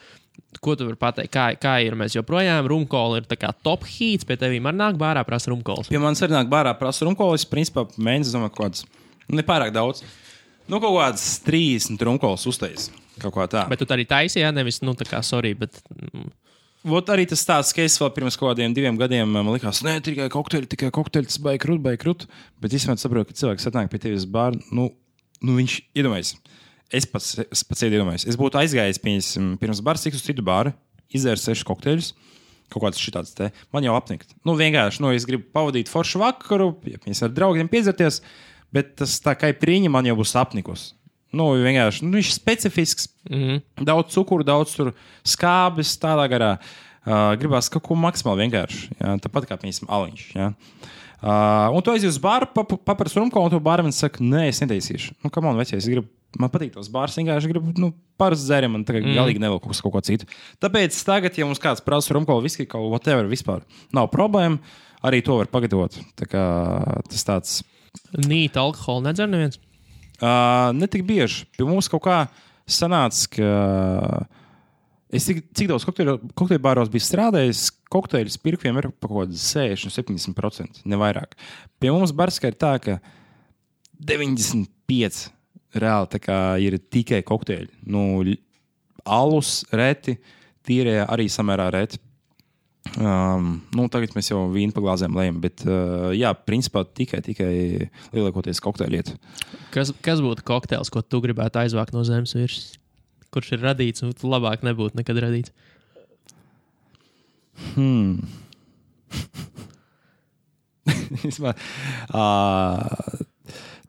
Ko tu vari pateikt? Kā ir? Mēs joprojām rumkola ir tā kā top heats, pie tevīm arī nāk bārā prasa rumkolas. Pie manis arī nāk bārā prasa rumkolas, principā mēnesis, domāju, kaut kāds, nepārāk daudz. Kaut kāds 30 rumkolas uztais. Kaut kā tā. Bet tu arī taisīji, nevis, tā kā, sorry, bet... Vot arī tas tāds, ka es vēl pirms kaut kādiem 2 gadiem man likās, tikai kokteļi, tas baigi krūt. Bet īstenībā saprotu, ka cilvēks atnāk pie tevis bāru, viņš iedomājas. Es pats iedomājos. Es būtu aizgājis pirms bāra, uz citu bāru, izdzēru 6 kokteļus, kaut kāds šitāds te. Man jau apnikt. Vienkārši, es gribu pavadīt foršu vakaru, mēs ar draugiem piedzerties, bet tas tā kā prīņa man jau būs apnikus. Vienkārši, viņš ir specifisks. Daudz cukuru, daudz skābes, tādā garā. Gribās kaut ko maksimāli vienkārši. Ja? Tāpat kā, piemēram, aliņš. Ja? Un tu aizies uz bāru, paprasti rumko, un tu bārmenis saka, nē, es netaisīšu. Kam man vecais, man patīk tos bārs, vienkārši gribu, parasti dzērim, man tagad galīgi nevēl kaut ko citu. Tāpēc tagad, ja mums kāds prasa rumko, viski, kaut whatever, vispār nav problēma, arī to var pagatavot. Tā kā tas tāds... Nīt alkoholu nedzer neviens? Ne tik bieži. Pie mums kaut kā sanāca, ka es cik daudz kokteļu bāros biju strādājis, kokteļu pirkviem ir pa kaut kādu 60-70%, ne vairāk. Pie mums barskā ir tā, ka 95% reāli tā kā ir tikai kokteļi. Alus reti, tīrie arī samērā reti. Tagad mēs jau vīnu pa glāzēm lejam, bet jā, principā tikai lielākoties kokteļu lietu. Kas būtu kokteils, ko tu gribētu aizvākt no zemes virsmas? Kurš ir radīts, un labāk nebūtu nekad radīts?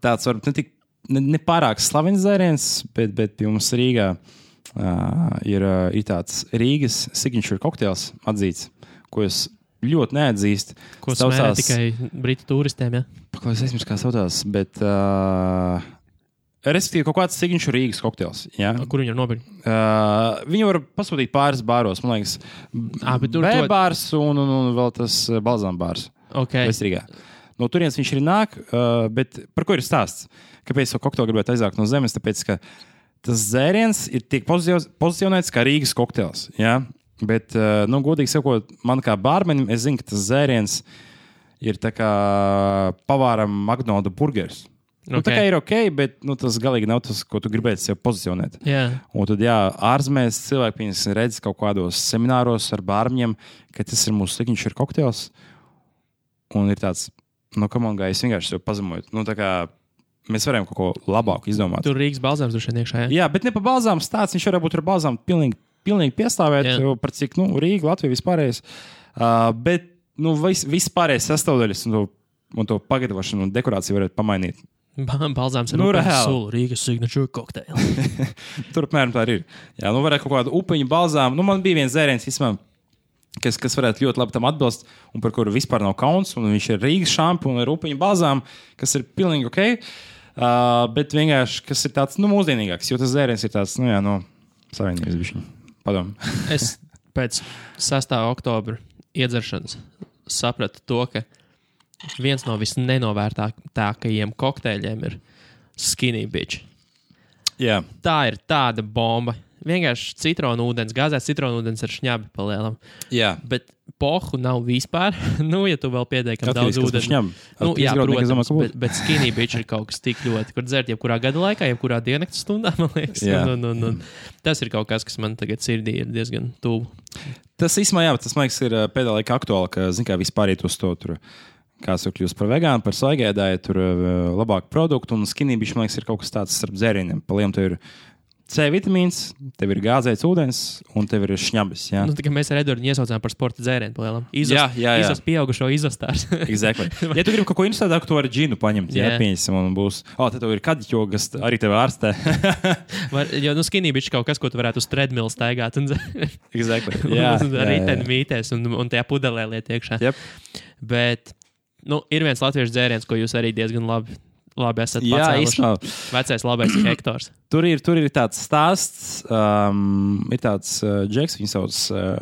Tāds varbūt ne pārāk slavens dzēriens, bet pie mums Rīgā ir tāds Rīgas signature kokteils atzīts, ko es ļoti neatzīstu. Ko smērē tikai britu turistiem, ja? Paklausies, aizmirst, kā saucās, bet respektīvi kaut kāds signature Rīgas kokteils. Ja? Kur viņi var nopirkt? Viņi var pasūtīt pāris bāros, man liekas, B-bārs un vēl tas balzām bārs. Okay. Vestrīgā. No turienes viņš arī nāk, bet par ko ir stāsts? Kāpēc to kokteili gribētu aizvākt no zemes? Tāpēc, ka tas dzēriens tiek pozicionēts kā Rīgas kokteils. Ja? Bet, godīgi sakot, man kā bārmenim, es zinu, ka tas dzēriens ir tā kā pavāram McDonald's burgers. Tā kā ir ok, bet tas galīgi nav tas, ko tu gribētu sev pozicionēt. Yeah. Un tad, ārzemēs cilvēki redz kaut kādos semināros ar bārmeņiem, ka tas ir mūsu signature kokteils. Un ir tāds, come on, guys, vienkārši sev pazemoju. Tā kā mēs varam kaut ko labāku izdomāt. Tur Rīgas balzāms droši vien iekšā, jā, bet ne pa balzām stāsts, viņš varētu būt ar balzām pilnīgi piestāvēt, par cik, Rīga, Latvija vispārējais. Bet, vispārējais sastāvdaļas un to pagatavošanu un dekorāciju varētu pamainīt. Balzāms ir sulu, Rīgas signature kokteili. Tur apmēram tā ir. Jā, varētu kaut kādu upeņu balzām. Man bija viens dzēriens, kas varētu ļoti labi tam atbilst, un par kuru vispār nav kauns, un viņš ir Rīgas šampu un ar upeņu balzām, kas ir pilnīgi ok. Bet vienkārši, kas ir tāds, mūsdienīgāks, jo tas dzēriens ir tāds, savienības bišķiņ. Padom. Es pēc 6. oktobra iedzeršanas sapratu to, ka viens no visnenovērtākajiem kokteļiem ir Skinny Bitch. Jā. Tā ir tāda bomba. Vienkārši citronu ūdens, gāzēts citronu ūdens ar šņabi palielam. Jā. Bet pohu nav vispār. Ja tu vēl pietiekam daudz ūdens. Jā, protams, bet Skinny Bitch ir kaut kas tik ļoti, kur dzert jebkurā gada laikā, jebkurā diennakts stundā, man liekas. Tas ir kaut kas man tagad sirdī ir diezgan tuvu. Tas īstenībā, tas, man liekas, ir pēdējā laikā aktuāli, ka, zin kā, vispār iet uz to tur, kāds tur kļūst par vegānu, par svaigēdāju, tur labāku produktu, un Skinny Bitch, man liekas, ir kaut kas tāds starp dzērieniem. Paliem, tur ir C vitamīns, tev ir gāzēts ūdens un tev ir šņabis. Jā, Nu, tā kā mēs ar Edvardu iesaucām par sporta dzērienu palielam. Jā. Izas pieaugušo izastārs. Exactly. Ja tu gribi kaut ko interesantāku, tu vari džinu paņemt. Jā, pieņemsim, un būs. Tad tev ir kadiķo, kas arī tev ārstē. Jo, skinny bitch kaut kas, ko tu varētu uz treadmill staigāt. Exactly. Jā. Riteni mītēs un tajā pudelē liet iekšā. Yep. Bet, ir viens latviešu dzēriens, ko jūs arī diezgan labi esat pacēluši. Vecais labais Hektors. Tur ir tāds stāsts, ir tāds džeks, viņu sauc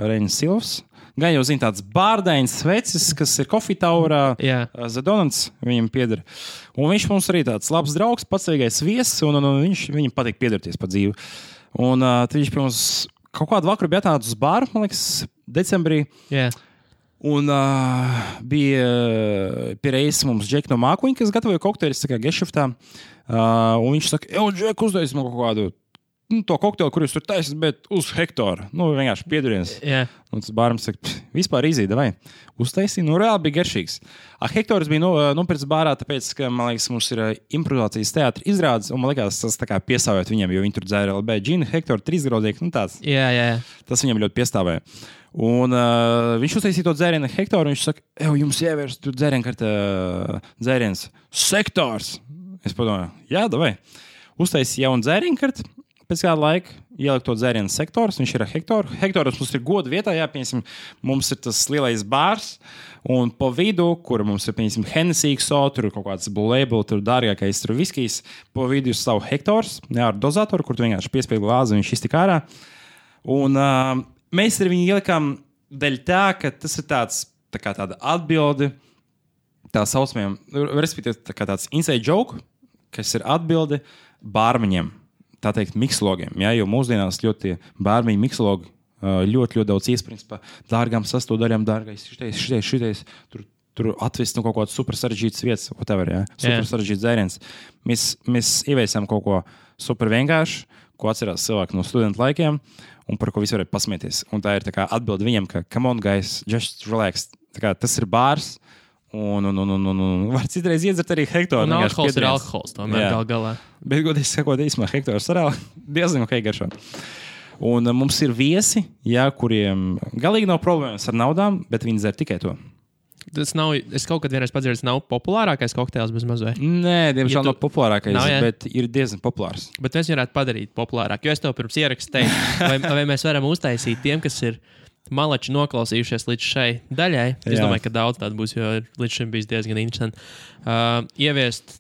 Reinis Silvs. Gan jau zina tāds bārdains vecis, kas ir Coffee Towerā, Zadonants viņam pieder. Un viņš mums arī tāds labs draugs, pacīgais viesis, un viņam patīk piederties pa dzīvi. Un tad viņš pie mums kaut kādu vakaru bija atnācis uz bāru, man liekas, decembrī. Jā. Un bija pie reizes mums Džeki no Mākuņa, kas gatavoja kokteļus gešaftā. Un viņš saka, Džek, uztaisi man kaut kādu to kokteili, kur jūs tur taisat, bet uz Hektoru. Vienkārši pieduriens. Yeah. Un tas bāram saka, vispār izīt, vai? Uztaisīja, reāli bija garšīgs. Hektors bija nopirts bārā, tāpēc, ka, man liekas, mums ir improvizācijas teātra izrādes, un man liekas, tas tā kā piesāvēt viņiem, jo viņi tur dzēra LB džinu, Hektoru, 3-graudīgi, tāds. Jā. Tas viņam ļoti piestāvēja. Un viņš uztaisīja to dzērienu Hektoru, un viņš saka, jums ievērst tur dzēriens Sektors. Es padomāju, jā, davai. Uztaisīja jaunu dzērienu karti. Pēc kāda laika ielikt to dzērienu Sektors, viņš ir ar Hektoru. Hektoros mums ir goda vietā, jāpieņemsim, mums ir tas lielais bārs, un pa vidu, kur mums ir, pieņemsim, Hennessy, tur ir kaut kāds Blue Label, tur dārgākais, tur viskijs, pa vidu ir savu Hektors, ar dozatoru, kur tu vienkārši piespied glāzi, un viņš iztik ārā. Un mēs ar viņu ielikām dēļ tā, ka tas ir tāda atbildi, tā saucamajam, respektīvi, tā kā tāds inside joke, kas ir atbildi bārmeņiem. Tā teikt, mikslogiem, ja, jo mūsdienās ļoti bārmeņu mikslogi ļoti daudz iesprings par dārgām sastāvdaļām, dārgais, šitais, tur atvest kaut kāds super sarežģīts vietas, whatever, ja, super sarežģīts dzēriens. Mēs ieviesām kaut ko super vienkārši, ko atcerās cilvēki no studentu laikiem, un par ko visi varēja pasmieties. Un tā ir tā kā atbildi viņam, ka come on, guys, just relax. Tā kā tas ir bārs, un var citreiz iedzert arī Hektoru. Un alkohols ir alkohols, tomēr galā. Bet, godīgi sakot, īsumā Hektors arī diezgan ok garšo. Un mums ir viesi, kuriem galīgi nav problēmas ar naudām, bet viņi dzer tikai to. Tas nav, es kaut kad vienreiz padzirdu, nav populārākais kokteils bez mazvai. Nē, diemžēl nav populārākais, bet ir diezgan populārs. Bet mēs varētu padarīt populārāk, jo es tev pirms ierakstu teicu, vai mēs varam uztaisīt tiem, kas ir malači noklausījušies līdz šai daļai. Es domāju, ka daudz tādu būs, jo līdz šim bijis diezgan interesanti. Ieviest,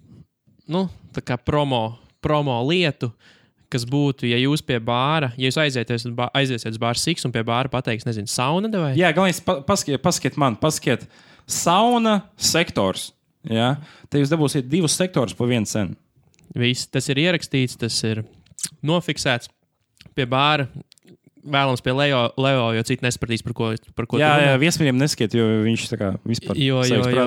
tā kā promo lietu, kas būtu, ja jūs pie bāra, ja jūs aiziesiet uz bāra Siks un pie bāra pateiks, nezinu, sauna vai? Jā, galvenais paskiet sauna Sektors. Jā, te jūs dabūsiet 2 sektorus pa 1 cenu. Viss, tas ir ierakstīts, tas ir nofiksēts pie bāra. Vēlams pie Leo, jo citi nesapratīs, par ko jā, viesmīļiem neskiet, jo viņš tā kā vispār jo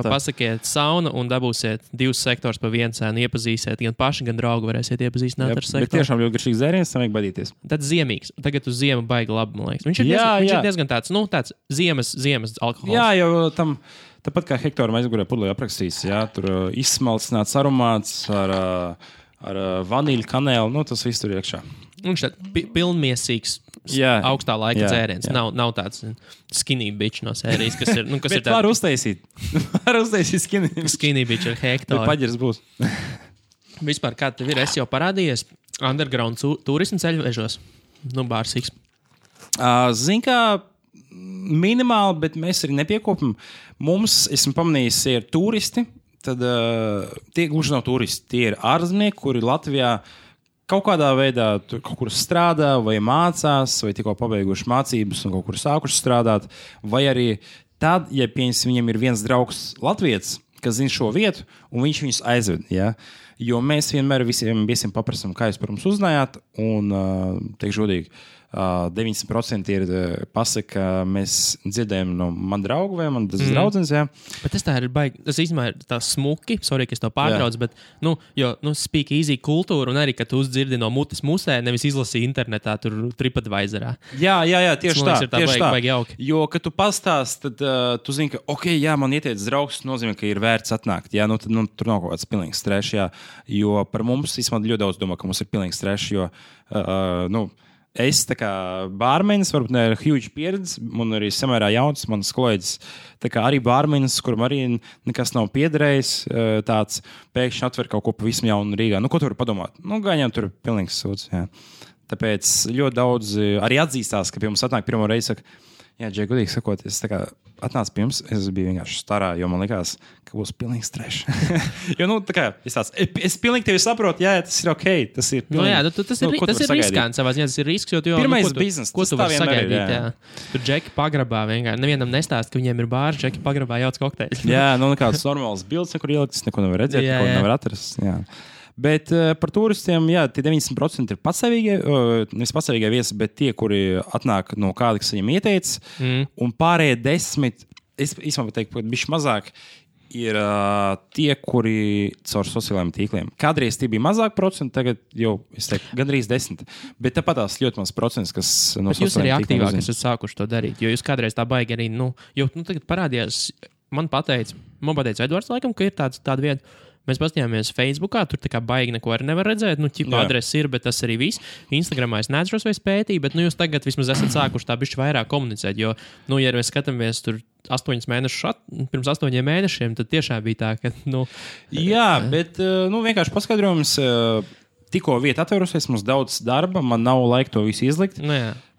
pasakiet sauna un dabūsiet 2 sektors pa 1 cenu, iepazīsiet, gan paši, gan draugu varēsiet iepazīstināt ar sektoru. Bet tiešām ļoti garšīgs dzēriens, tam vajag badīties. Tad ziemīgs. Tagad uz ziemu baigi labi, man liekas. Viņš ir diezgan tāds, tāds ziemas alkohols. Jā, jo tam, tāpat kā Hektoram aizgurē pudelī aprakstīs, tur izsmalcināts aromāts ar vanīļu, kanēlu, tas viss tur iekšā. Viņš tāds pilnmiesīgs, augstā laika dzēriens. Nav tāds skinny bitch no sērijas, kas ir... Kas bet var uztaisīt. Var uztaisīt skinny bitch ar Hektoru. Bet paģers būs. Vispār, kā tev ir, jau parādījies underground turismu ceļvežos? Bārsiks. Zin kā, minimāli, bet mēs arī nepiekopam. Mums, esmu pamanījis, ir turisti, tad tie gluži nav turisti. Tie ir ārzemnieki, kuri Latvijā kaut kādā veidā kaut kur strādā, vai mācās, vai tikko pabeiguši mācības un kaut kur sākuši strādāt. Vai arī tad, ja viņam ir viens draugs Latvijas, kas zina šo vietu, un viņš viņus aizved. Ja? Jo mēs vienmēr visiem viesiem paprasam, kā jūs par mums uzzinājāt, un teikšu godīgi, 90% ir pasaka, mēs dzirdējam no man draugu vai man draudzenes, jā. Bet tas tā ir baigi, tas īstenībā ir tā smuki, sorry, ka es to pārtrauc, bet, speak easy kultūra, un arī, ka tu uzdzirdi no mutes musē, nevis izlasīji internetā, tur TripAdvisorā. Jā, tieši tā. Baigi jauki. Jo, kad tu pastāst, tad tu zini, ka, man ieteicis draugs, nozīmē, ka ir vērts atnākt, jā, tad tur nav kaut kāds pilnīgs stress, jā. Jo par mums, īstenībā, ļoti daudz domā, ka mums ir pilnīgs trešs, jo, es tā kā bārmenis, varbūt ne ar huge pieredzi, un arī samērā jauns, mans kolēģis, tā kā arī bārmenis, kuram arī nekas nav piederējis, tāds pēkšņi atver kaut ko pavisam jaunu Rīgā. Nu, ko tu vari padomāt? Nu, gaņām tur pilnīgs sūds, jā. Tāpēc ļoti daudz arī atzīstās, ka pie mums atnāk pirmo reizi, saka, jā, Džek, godīgi sakot, es tā kā atnācu pie jums, es biju vienkārši starā, jo man likās, ka būs pilnīgs trešs. Jo, tā kā, es pilnīgi tevi saprotu, jā, tas ir ok, tas ir pilnīgi. Tas ir riskants savā ziņā, tas ir risks, jo tu jau... Pirmais biznes, ko tu vari sagaidīt, jā. Tur Džeki pagrabā vienkārši, nevienam nestāst, ka viņiem ir bārs, Džeki pagrabā jauc kokteļus. Jā, nekāds normāls bilds, nekur ieliktas, neko nevar redzēt, neko nevar atrast, jā. Bet par turistiem, jā, tie 90% ir patsavīgie, nevis patsavīgie viesi, bet tie, kuri atnāk no kāda, kas viņam ieteica, un pārējie 10, es īstenībā teiktu, ka bišķi mazāk, ir tie, kuri caur sociālajiem tīkliem. Kādreiz tie bija mazāk procenti, tagad jau, es teiktu, gandrīz 10. Bet tāpat tās ļoti maz procents, kas no sociālajiem tīkliem. Bet jūs arī aktīvāk esat sākuši to darīt, jo jūs kādreiz tā baigi arī, tagad parādījās, man pateica Edvards laikam, ka ir tāda vieta. Mēs paskatījāmies Facebookā, tur tā kā baigi neko arī nevar redzēt. Ķipa adrese ir, bet tas arī viss. Instagramā es neatceros vai spētīju, bet jūs tagad vismaz esat sākuši tā bišķi vairāk komunicēt. Jo, ja mēs skatāmies tur 8 mēnešus, pirms 8 mēnešiem, tad tiešām bija tā, ka. Jā, bet vienkārši paskaidrojums. Tikko vieta atvērusies, mums daudz darba, man nav laika to visu izlikt.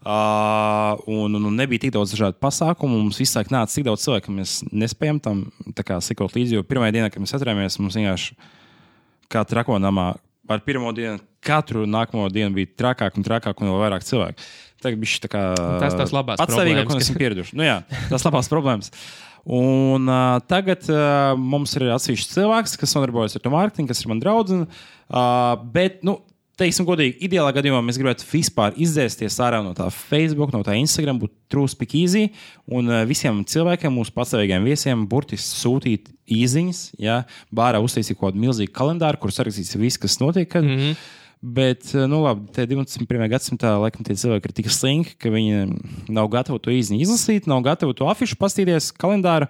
Un nebija tik daudz dažādu pasākumu. Mums visāk nāca tik daudz cilvēku, ka mēs nespējam tam sekot līdzi. Jo pirmajā dienā, kad mēs atcerējāmies, mums vienkārši kā trakonamā ar pirmo dienu, katru nākamo dienu bija trakāk un vēl vairāk cilvēku. Tagad bija tā kā tas labās patsavīgāk, un esam pieraduši. Jā, tas labās problēmas. Un tagad mums ir atsevišķs cilvēks, kas nodarbojas ar to mārketingu, kas ir man draudzene. Bet, teiksim godīgi, ideālā gadījumā mēs gribētu vispār izdzēsties ārā no tā Facebook, no tā Instagram, būt true speak easy un visiem cilvēkiem, mūsu patsavīgiem viesiem, burtiski sūtīt īziņas, ja, bārā uztaisīt kaut kādu milzīgu kalendāru, kur sarakstīts viss, kas notiek. Bet, labi, te 21. gadsimtā laikam tie cilvēki ir tik slinki, ka viņi nav gatavi to īziņu izlasīt, nav gatavi to afišu pastīties kalendāru,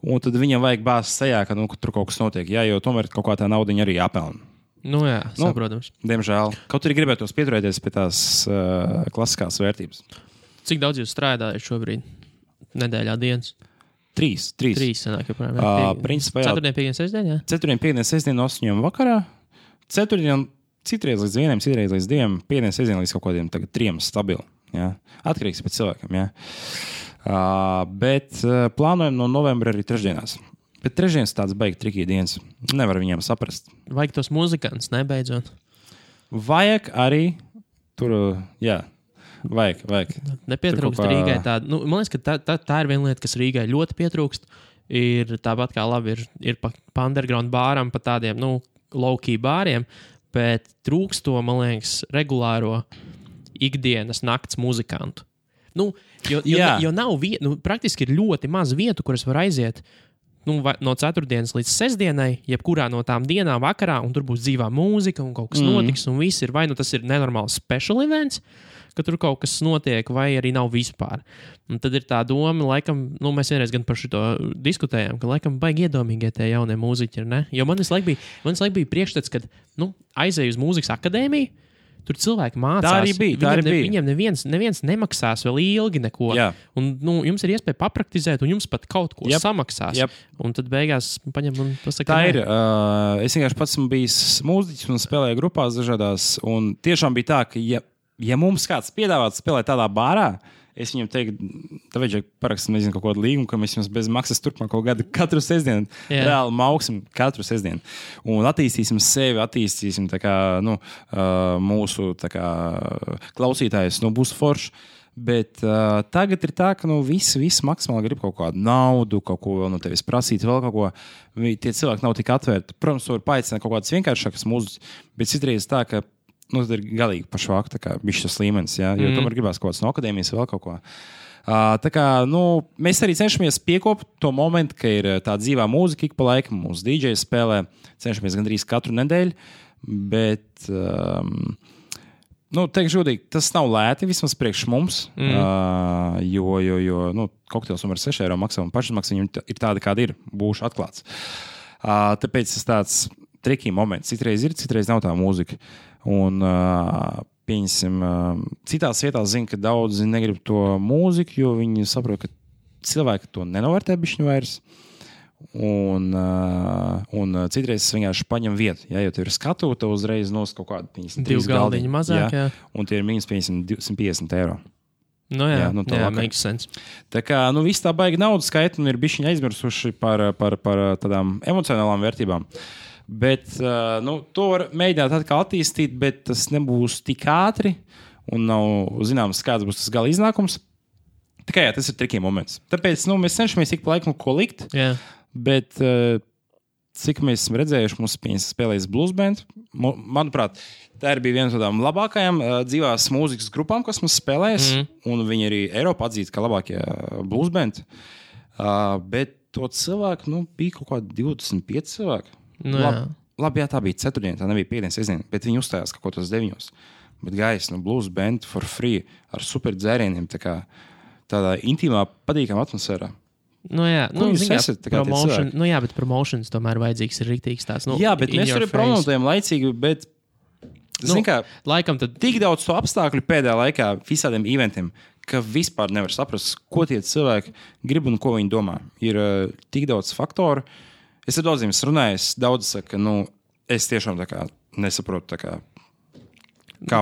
un tad viņiem vajag bāzes sejā, ka tur kaut kas notiek, ja, jo tomēr kaut kā tā naudiņa arī jāpelna. Jā, saprotams. Diemžēl. Kaut arī gribētos pieturēties pie tās klasiskās vērtības. Cik daudz jūs strādājat šobrīd? Nedēļā dienas? 3. 3 sanāk, principā, jā. 4. 5. sestdien, jā? 4. 5. sestdien no 8 vakarā. 4. citreiz līdz 1, citreiz līdz 2, 5. sestdien līdz kaut kādiem tagad 3 stabili. Jā. Atkarīgs pēc cilvēkiem, jā. Bet plānojam no novembra arī trešdienās. Bet trešdienas tāds baigi trikī dienas. Nevar viņiem saprast. Vajag tos muzikantus, nebeidzot. Vajag arī tur, jā, vajag. Nepietrūkst Rīgai tāda. Man liekas, ka tā ir viena lieta, kas Rīgai ļoti pietrūkst. Ir tāpat kā labi ir pa underground bāram, pa tādiem, low-key bāriem, bet trūkst to, man liekas, regulāro ikdienas nakts muzikantu. Jo nav vietu, praktiski ir ļoti maz vietu, kuras var aiziet no 4. līdz 6. jebkurā no tām dienām vakarā, un tur būs dzīvā mūzika, un kaut kas notiks, un viss ir, vai tas ir nenormāls special events, ka tur kaut kas notiek, vai arī nav vispār. Un tad ir tā doma, laikam, mēs vienreiz gan par šito diskutējām, ka laikam baigi iedomīgie tie jaunie mūziķi ir, ne? Jo man visu laiku bija priekšstats, kad, aizēju uz mūzikas akadēmiju, tur cilvēki mācās. Tā arī bija. Viņiem neviens nemaksās vēl ilgi neko. Jā. Un jums ir iespēja papraktizēt, un jums pat kaut ko samaksās. Un tad beigās paņem un pasaka. Tā ir. Es vienkārši pats esmu bijis mūziķis un spēlēju grupās dažādās. Un tiešām bija tā, ka ja mums kāds piedāvātu spēlēt tādā bārā, es viņam teiktu, tā vajadzēja parakstīt, nezinu, kaut kādu līgumu, ka mēs jums bez maksas turpmāko gadu katru sestdienu reāli mauksim katru sestdienu. Un attīstīsim sevi, attīstīsim tā kā, mūsu tā kā klausītājus, būs forši. Bet tagad ir tā, ka visi maksimāli grib kaut kādu naudu, kaut ko vēl no tevis prasīt, vēl kaut ko. Tie cilvēki nav tik atvērti. Protams, var paaicināt kaut kādas vienkāršākas mūzikas, bet citreiz tā, ka tas ir galīgi pašvāk, tā kā bišķi tas līmenis, jā, jo tomēr gribās kaut kāds no akadēmijas vēl kaut ko. Tā kā, mēs arī cenšamies piekopt to momentu, ka ir tā dzīvā mūzika ik pa laikam, mūsu DJ spēlē, cenšamies gandrīz katru nedēļu, bet, teikšu žodīgi, tas nav lēti vismaz priekš mums, jo kokteils ar 6 eiro maksā un pašizmaksa viņam ir tāda, kāda ir, būšu atklāts. Tāpēc tas tāds triki moments. Citreiz ir, citreiz nav tā mūzika. Un, pieņemsim, citās vietās zinu, ka daudzi negrib to mūziku, jo viņi saprot, ka cilvēki to nenovērtē bišķiņu vairs. Un citreiz es vienkārši paņem vietu. Ja, jo tev ir skatu, tev uzreiz nos kaut kāda 2 galdiņi mazāk. Jā. Un tie ir minus 250 eiro. Nu jā, makes sense. Tā kā viss tā baigi naudas skaita un ir bišķiņi aizmirsuši par tādām emocionālām vērtībām. Bet to var mēģināt atkal attīstīt, bet tas nebūs tik ātri un nav zināms, kāds būs tas gala iznākums. Tikai jā, tas ir tricky moments. Tāpēc mēs cenšamies ik pa laikam ko likt, bet cik mēs esam redzējuši, mums spēlējas blues band. Manuprāt, tā bija viena no tādām labākajām dzīvās mūzikas grupām, kas mums spēlējas, un viņi arī Eiropā atzīst, kā labākie blues band. Bet to cilvēku, bija kaut kādi 25 cilvēki. Labi, jā, tā bija ceturtdiena, tā nebija piekdienas sestdiena, bet viņi uzstājās kaut ko tos 9. Bet gais, blues band for free, ar super dzērieniem, tādā intīmā, patīkamā atmosfērā. Bet promotions tomēr vajadzīgs ir rīktīgs tāds. Jā, bet mēs arī promotējam laicīgi, bet laikam tad tik daudz to apstākļu pēdējā laikā visādiem eventiem, ka vispār nevar saprast, ko tie cilvēki grib un ko viņi domā. Ir tik daudz faktoru. Es ar daudziem runāju, daudz saka, es tiešām nesaprotu kā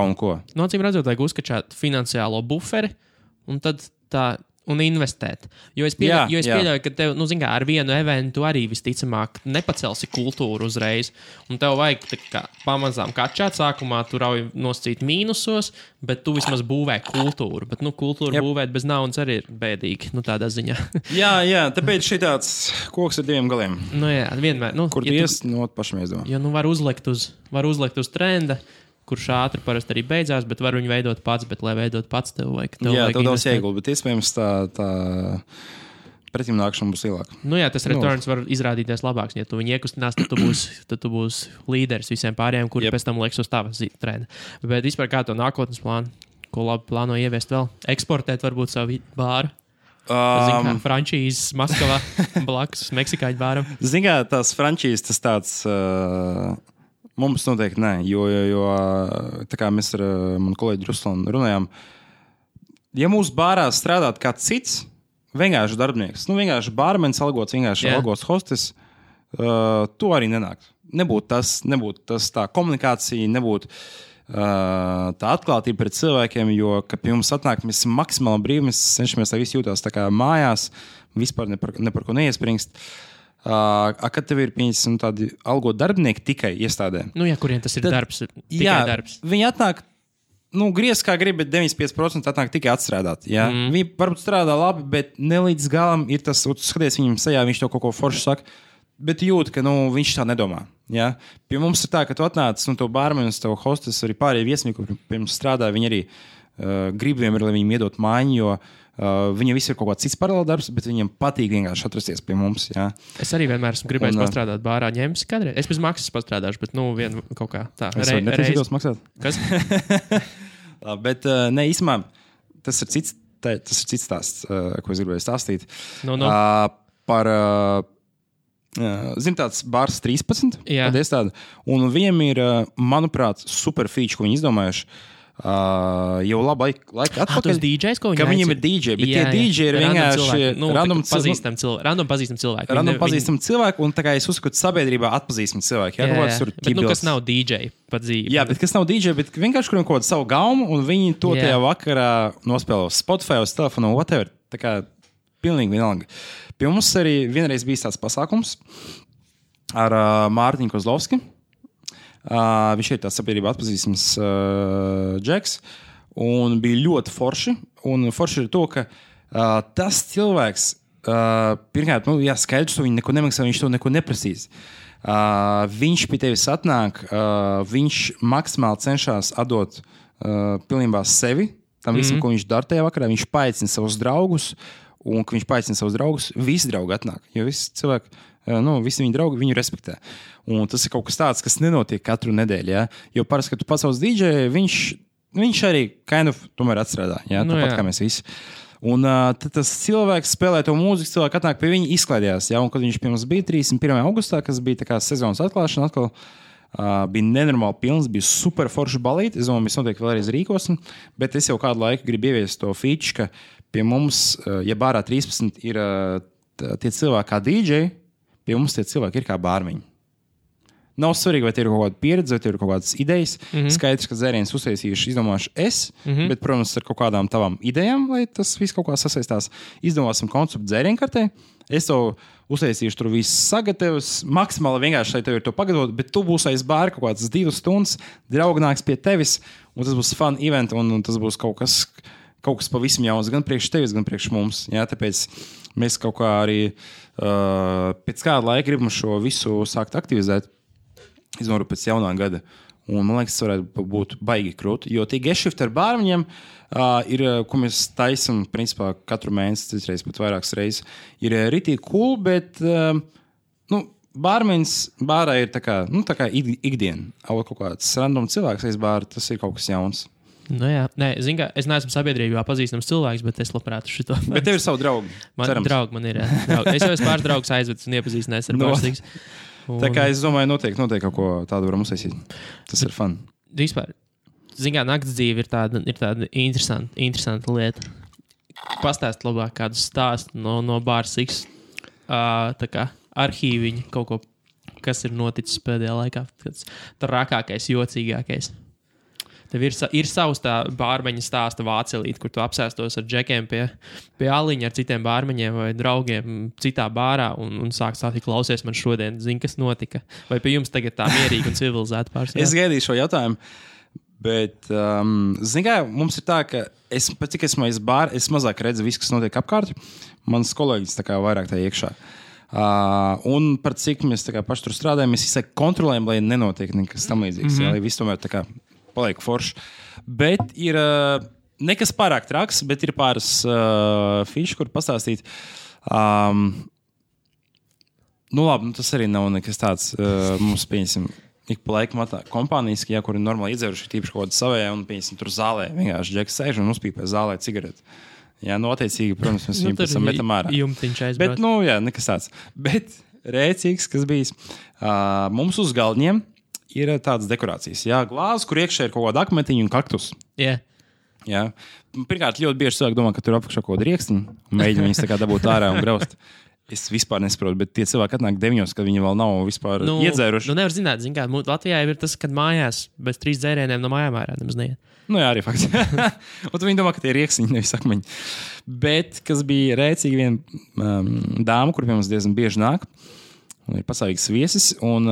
un ko. Acīm redzot, vajag uzskačāt finansiālo buferi un tad un investēt. Jo es pieļauju, ka tev, ar vienu eventu arī visticamāk nepacelsi kultūru uzreiz. Un tev vajag pamazām kačāt sākumā, tu rauj noscīt mīnusos, bet tu vismaz būvē kultūru. Bet kultūru būvēt bez naudas arī ir bēdīgi, tādā ziņā. jā, tāpēc šī tāds koks ar 2 galiem. Vienmēr. Kur tu ies, pašam iesdomā. Jo var uzlikt uz trenda, kurš ātri parasti arī beidzās, bet var viņu veidot pats, bet, lai veidot pats, tev vajag daudz ieguldi, bet iespējams tā pretimnākšana būs lielāka. Tas returns var izrādīties labāks, ja tu viņu iekustinās, tad tu būsi līderis visiem pārējiem, kuri pēc tam lieks uz tava trenda. Bet vispār kā to nākotnes plānu, ko labi plāno ieviest vēl? Eksportēt varbūt savu bāru? Frančīzes Maskavā blakus Meksikāņu bāram. Tās frančīzes tas tāds... Mums noteikti nē, jo tā kā mēs ar manu kolēģi Ruslanu runājām, ja mūsu bārā strādāt kāds cits, vienkārši darbinieks, vienkārši bārmenis algots, vienkārši algots hostes, to arī nenāk. Nebūtu tas tā komunikācija, nebūtu tā atklātība pret cilvēkiem, jo, kad pie mums atnāk, mēs esam maksimāli brīvi, mēs cenšamies, lai visi jūtās tā kā mājās, vispār ne par ko neiespringst. Kad tev ir tādi algot darbinieki tikai iestādē. Kuriem tas ir darbs? Darbs. Viņi atnāk, griez kā grib, bet 95% atnāk tikai atstrādāt. Viņi varbūt strādā labi, bet ne līdz galam ir tas, skaties viņam sejā, viņš to kaut ko forši saka, bet jūt, ka viņš tā nedomā. Ja? Pie mums ir tā, ka tu atnāc, tev bārmenis, tev hostes, arī pārējie viesnīgi, kur pie mums strādā, viņi arī grib vienmēr, lai viņiem iedot maiņu, jo viņam viss ir kaut kāds cits paralēli darbs, bet viņam patīk vienkārši atrasties pie mums. Jā. Es arī vienmēr esmu gribējis pastrādāt bārā, ņemsi kādreiz. Es bez maksas pastrādāšu, bet vien kaut kā tā. Es varu neprasītos maksāt. Kas? Bet īstumā tas ir cits stāsts, ko es gribēju stāstīt. Par, tāds bārs 13, tad es tādu. Un viņam ir, manuprāt, super feature, ko viņi izdomājuši. Jau labu laiku atpakaļ. Tas DJs, ko viņi aicina? Viņiem ir DJ, bet tie DJ ir vienkārši random pazīstami cilvēki. Random pazīstami cilvēki, un tā kā es uzskatu, sabiedrībā atpazīstami cilvēki. Bet kas nav DJ pa dzīvi. Jā, bet kas nav DJ, bet vienkārši kuriem kaut kādu savu gaumu, un viņi to tajā vakarā nospēlē uz Spotify, uz telefonu, whatever. Tā kā pilnīgi vienalga. Pie mums arī vienreiz bija tāds pasākums ar Mārtiņu Kozlovski. Viņš ir tāds sabiedrībā atpazīstams džeks, un bija ļoti forši. Un forši ir to, ka tas cilvēks, pirmkārt, skaidrs, ka viņi neko nemaksā, viņš to neko neprasīs. Viņš pie tevis atnāk, viņš maksimāli cenšas atdot pilnībā sevi, tam visam, ko viņš dara tajā vakarā. Viņš paaicina savus draugus, un, kad viņš paaicina savus draugus, visi draugi atnāk, jo visi cilvēki, visi viņa draugi viņu respektē. Un tas ir kaut kas tāds, kas nenotiek katru nedēļu. Ja? Jo parasti, kad tu pasauc DJ, viņš arī tomēr atstrādā. Ja? Tāpat kā mēs visi. Un tad tas cilvēks spēlē to mūziku, cilvēki atnāk pie viņa, izklaidējās. Ja? Un kad viņš pie mums bija 31. augustā, kas bija tā kā sezonas atklāšana, atkal bija nenormāli pilns, bija super forši balīti. Es domāju, mēs noteikti vēlreiz rīkosim, bet es jau kādu laiku gribu ieviest to feature, ka pie mums, ja bārā 13 ir tie cilvēki kā DJ, pie mums tie cilvēki ir kā bārmeņi. Nav svarīgi, vai tie ir kaut kāda pieredze, vai tie ir kaut kādas idejas. Skaidrs, ka dzēriens uztaisījuši, izdomāšu es, bet, protams, ar kaut kādām tavām idejām, lai tas viss kaut kā sasaistās. Izdomāsim konceptu dzērienkartē. Es to uztaisīšu, tur viss sagatavs. Maksimāli vienkārši, lai tev ir to pagatavot, bet tu būsi aiz bāra kaut kādas 2 stundas, draugi nāks pie tevis, un tas būs fun event, un tas būs kaut kas pavisam jauns, gan priekš tevis, gan priekš mums. Jā, tāpēc mēs kaut kā arī pēc kāda laika gribam šo visu sākt aktivizēt. Iznoru pēc jaunā gada. Un, man liekas, tas varētu būt baigi krūti. Jo tie gešifti ar bārmeņiem ir, ko mēs taisam, principā, katru mēnesi, citreiz pat vairākas reizes, ir ritīgi cool, bet bārmeņs bārā ir tā kā ikdiena. Kaut kāds random cilvēks aiz bāra, tas ir kaut kas jauns. Nu jā, nē, zin kā, es neesmu sabiedrībā pazīstams cilvēks, bet es labprāt šito. Bet tev ir savu draugu. Draugi man ir, jā. Draugi. Es jau esmu pāris draugus aizvedis un iepazīstinājis ar pārstīgs. Tā kā es domāju, noteikti kaut ko tādu varam uztaisīt. Tas ir fun. Vispār, zin kā, nakts dzīve ir tāda interesanta lieta. Pastāst labāk kādu stāstu no Bāra Siks, tā kā arhīviņi, kaut ko, kas ir noticis pēdējā laikā. Tas trakākais, jocīgākais. Tev ir savs tā bārmeņa stāsta vācelīt, kur tu apsēstos ar džekiem pie aliņa ar citiem bārmeņiem vai draugiem citā bārā un sāk stāstīt, klausies man šodien, zini, kas notika. Vai pie jums tagad tā mierīgi un civilizēta pārstāvja? Es gaidīju šo jautājumu, bet, zini kā, mums ir tā, ka pat cik esmu aiz bāra, es mazāk redzu visu, kas notiek apkārt. Mans kolēģis tā kā vairāk tā iekšā. Un par cik mēs tā kā paši tur strādājam, mēs visai kontrolējam, lai nenotiek nekas tam līdzīgs, lai viss tomēr tā kā paliek forši. Bet ir nekas pārāk traks, bet ir pāris fiši, kur pastāstīt. Labi, tas arī nav nekas tāds. Mums, pieņemsim, ik pa laikam kompānijas, kur ir normāli iedzēruši, tīpaši kaut kāda savējā, un, pieņemsim, tur zālē vienkārši džeks sēž un uzpīpē zālē cigareti. Jā, attiecīgi, protams, mēs viņu pēc tam metam ārā. Jumtiņš aizbrauc. Bet, jā, nekas tāds. Bet rēcīgs, kas bijis, mums uz galdiņiem ir tādas dekorācijas. Jā, glāzes, kur iekšā ir kaut kāda akmetiņa un kaktus. Yeah. Jā. Pirmkārt, ļoti bieži cilvēki domā, ka tur apakšā kaut kāda riekstiņa un mēģina viņas tā kā dabūt ārā un graust. Es vispār nesaprotu, bet tie cilvēki atnāk 9, kad viņi vēl nav vispār iedzēruši. Nevar zināt, kā Latvijā ir tas, kad mājās bez 3 dzērieniem no mājām ārā nemaz neiet. Jā, arī fakts. Un viņi domā, ka tie ir riekstiņi, nevis akmeņi. Bet, kas bija rēcīgi viena dāma, kur pie mums diezgan bieži nāk, un ir pastāvīgs viesis, un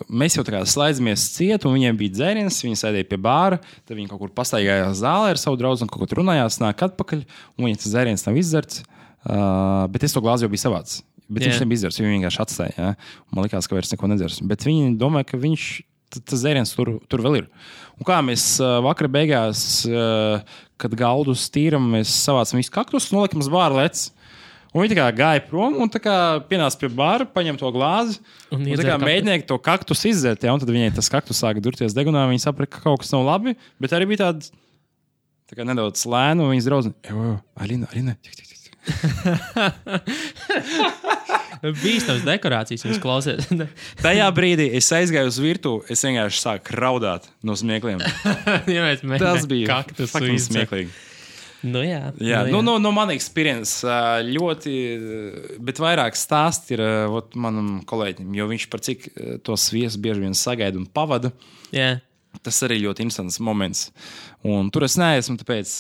mēs jau tā kā slaidzamies ciet, un viņiem bija dzēriens, viņi sēdēja pie bāra, tad viņi kaut kur pastaigājās zālē ar savu draugu, un kaut kur runājās, nāk atpakaļ, un viņiem tas dzēriens nav izdzerts, bet es to glāzi jau biju savāds. Bet viņš nebija izdzerts, viņi vienkārši atstāja, jā. Man likās, ka vairs neko nedzers. Bet viņi domāja, ka tas dzēriens tur vēl ir. Un kā mēs vakara beigās, kad galdus tīram, mēs savācam visu kaktus, nolikam uz bāra lec. Un viņi tā kā gāja prom un tā kā pienāca pie bāra, paņem to glāzi un tā kā mēģināja to kaktus izdzert, ja, un tad viņai tas kaktus sāka durties degunā, viņi saprata, ka kaut kas nav labi, bet arī bija tā kā nedaudz lēna, un viņas draudzene, Alina, Bīstams dekorācijas jums klausies. Tajā brīdī es aizgāju uz virtuvi, es vienkārši sāku raudāt no smiekliem. Tas bija fucking smieklīgi. Jā. No man experience ļoti, bet vairāk stāst ir manam kolēģim, jo viņš par cik tos viesus bieži vien sagaida un pavada. Yeah. Tas arī ļoti interesants moments. Un tur es neesmu, tāpēc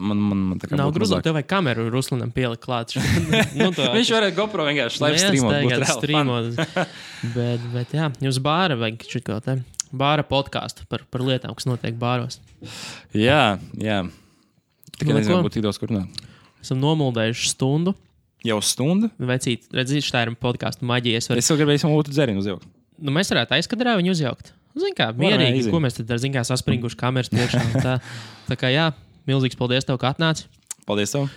man tā kā nav grūti. Tev vajag kameru Ruslanam pielikt klāt. Viņš varētu GoPro vienkārši live streamot. Bet jā, jums bāra vajag šitko te. Bāra podcastu par lietām, kas notiek bāros. Jā. Tikai nezinu, būtu tik daudz kur runāt. Esam nomuldējuši stundu. Jau stundu? Vecīt, redzīt, tā ir podcastu maģija. Es vēl gribēju savu dzērienu uzjaukt. Mēs varētu aizkadrā viņu uzjaukt. Zin kā, mierīgi, ko mēs tad ar saspringuši kameras priekšā. Tā kā jā, milzīgs paldies tev, ka atnāci. Paldies tev.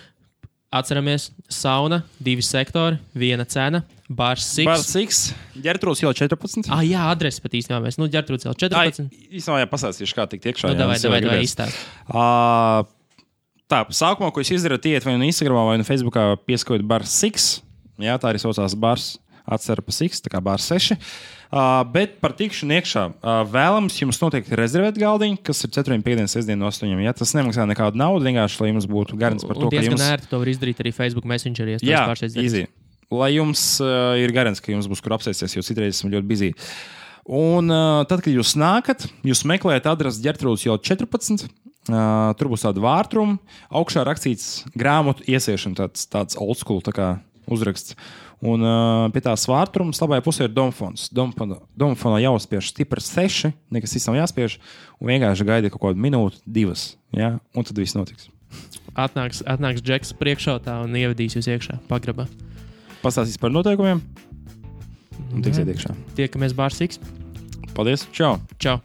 Atceramies, sauna, 2 sektori, 1 cena, Bārs Siks. Bārs Siks, Ģertrūds iela 14. Jā, adresi pat īstenībā mēs. Ģertrūds iela 14. Īstenībā pasāstīšu, kā tikt iekšā. Davai izstāst. Tā, sākumā, ko jūs izdarat, iet vai no Instagramā, vai no Facebookā pieskojot bar 6. Jā, tā arī saucās bars atcera pa 6, tā kā bar 6. Bet par tikšanu iekšā vēlams jums noteikti rezervēt galdiņu, kas ir 4, 5, 6, no 8. Ja? Tas nemaksā nekādu naudu, vienkārši, lai jums būtu garants par to, ka jums... Un diezgan ērti to var izdarīt arī Facebook Messengerī. Jā, easy. Lai jums ir garants, ka jums būs kur apsēsties, jo citreiz esmu ļoti busy. Un tad, kad jūs nākat, jūs meklējat adresi Ģertrūdas iela 14. Tur būs tāda vārtruma, augšā rakstīts grāmatu iesiešana, tāds old school tā kā uzraksts. Un pie tās vārtrumas labajā pusē ir domfons. Domfonā jāuzspiež stipri 6, nekas cits nav jāspiež, un vienkārši gaida kaut kādu minūti, 2, ja? Un tad viss notiks. Atnāks Džeks priekšautā un ievedīs jūs iekšā pagrabā. Pastāstīs par noteikumiem un tiksiet iekšā. Tiekamies bārs X. Paldies, čau! Čau!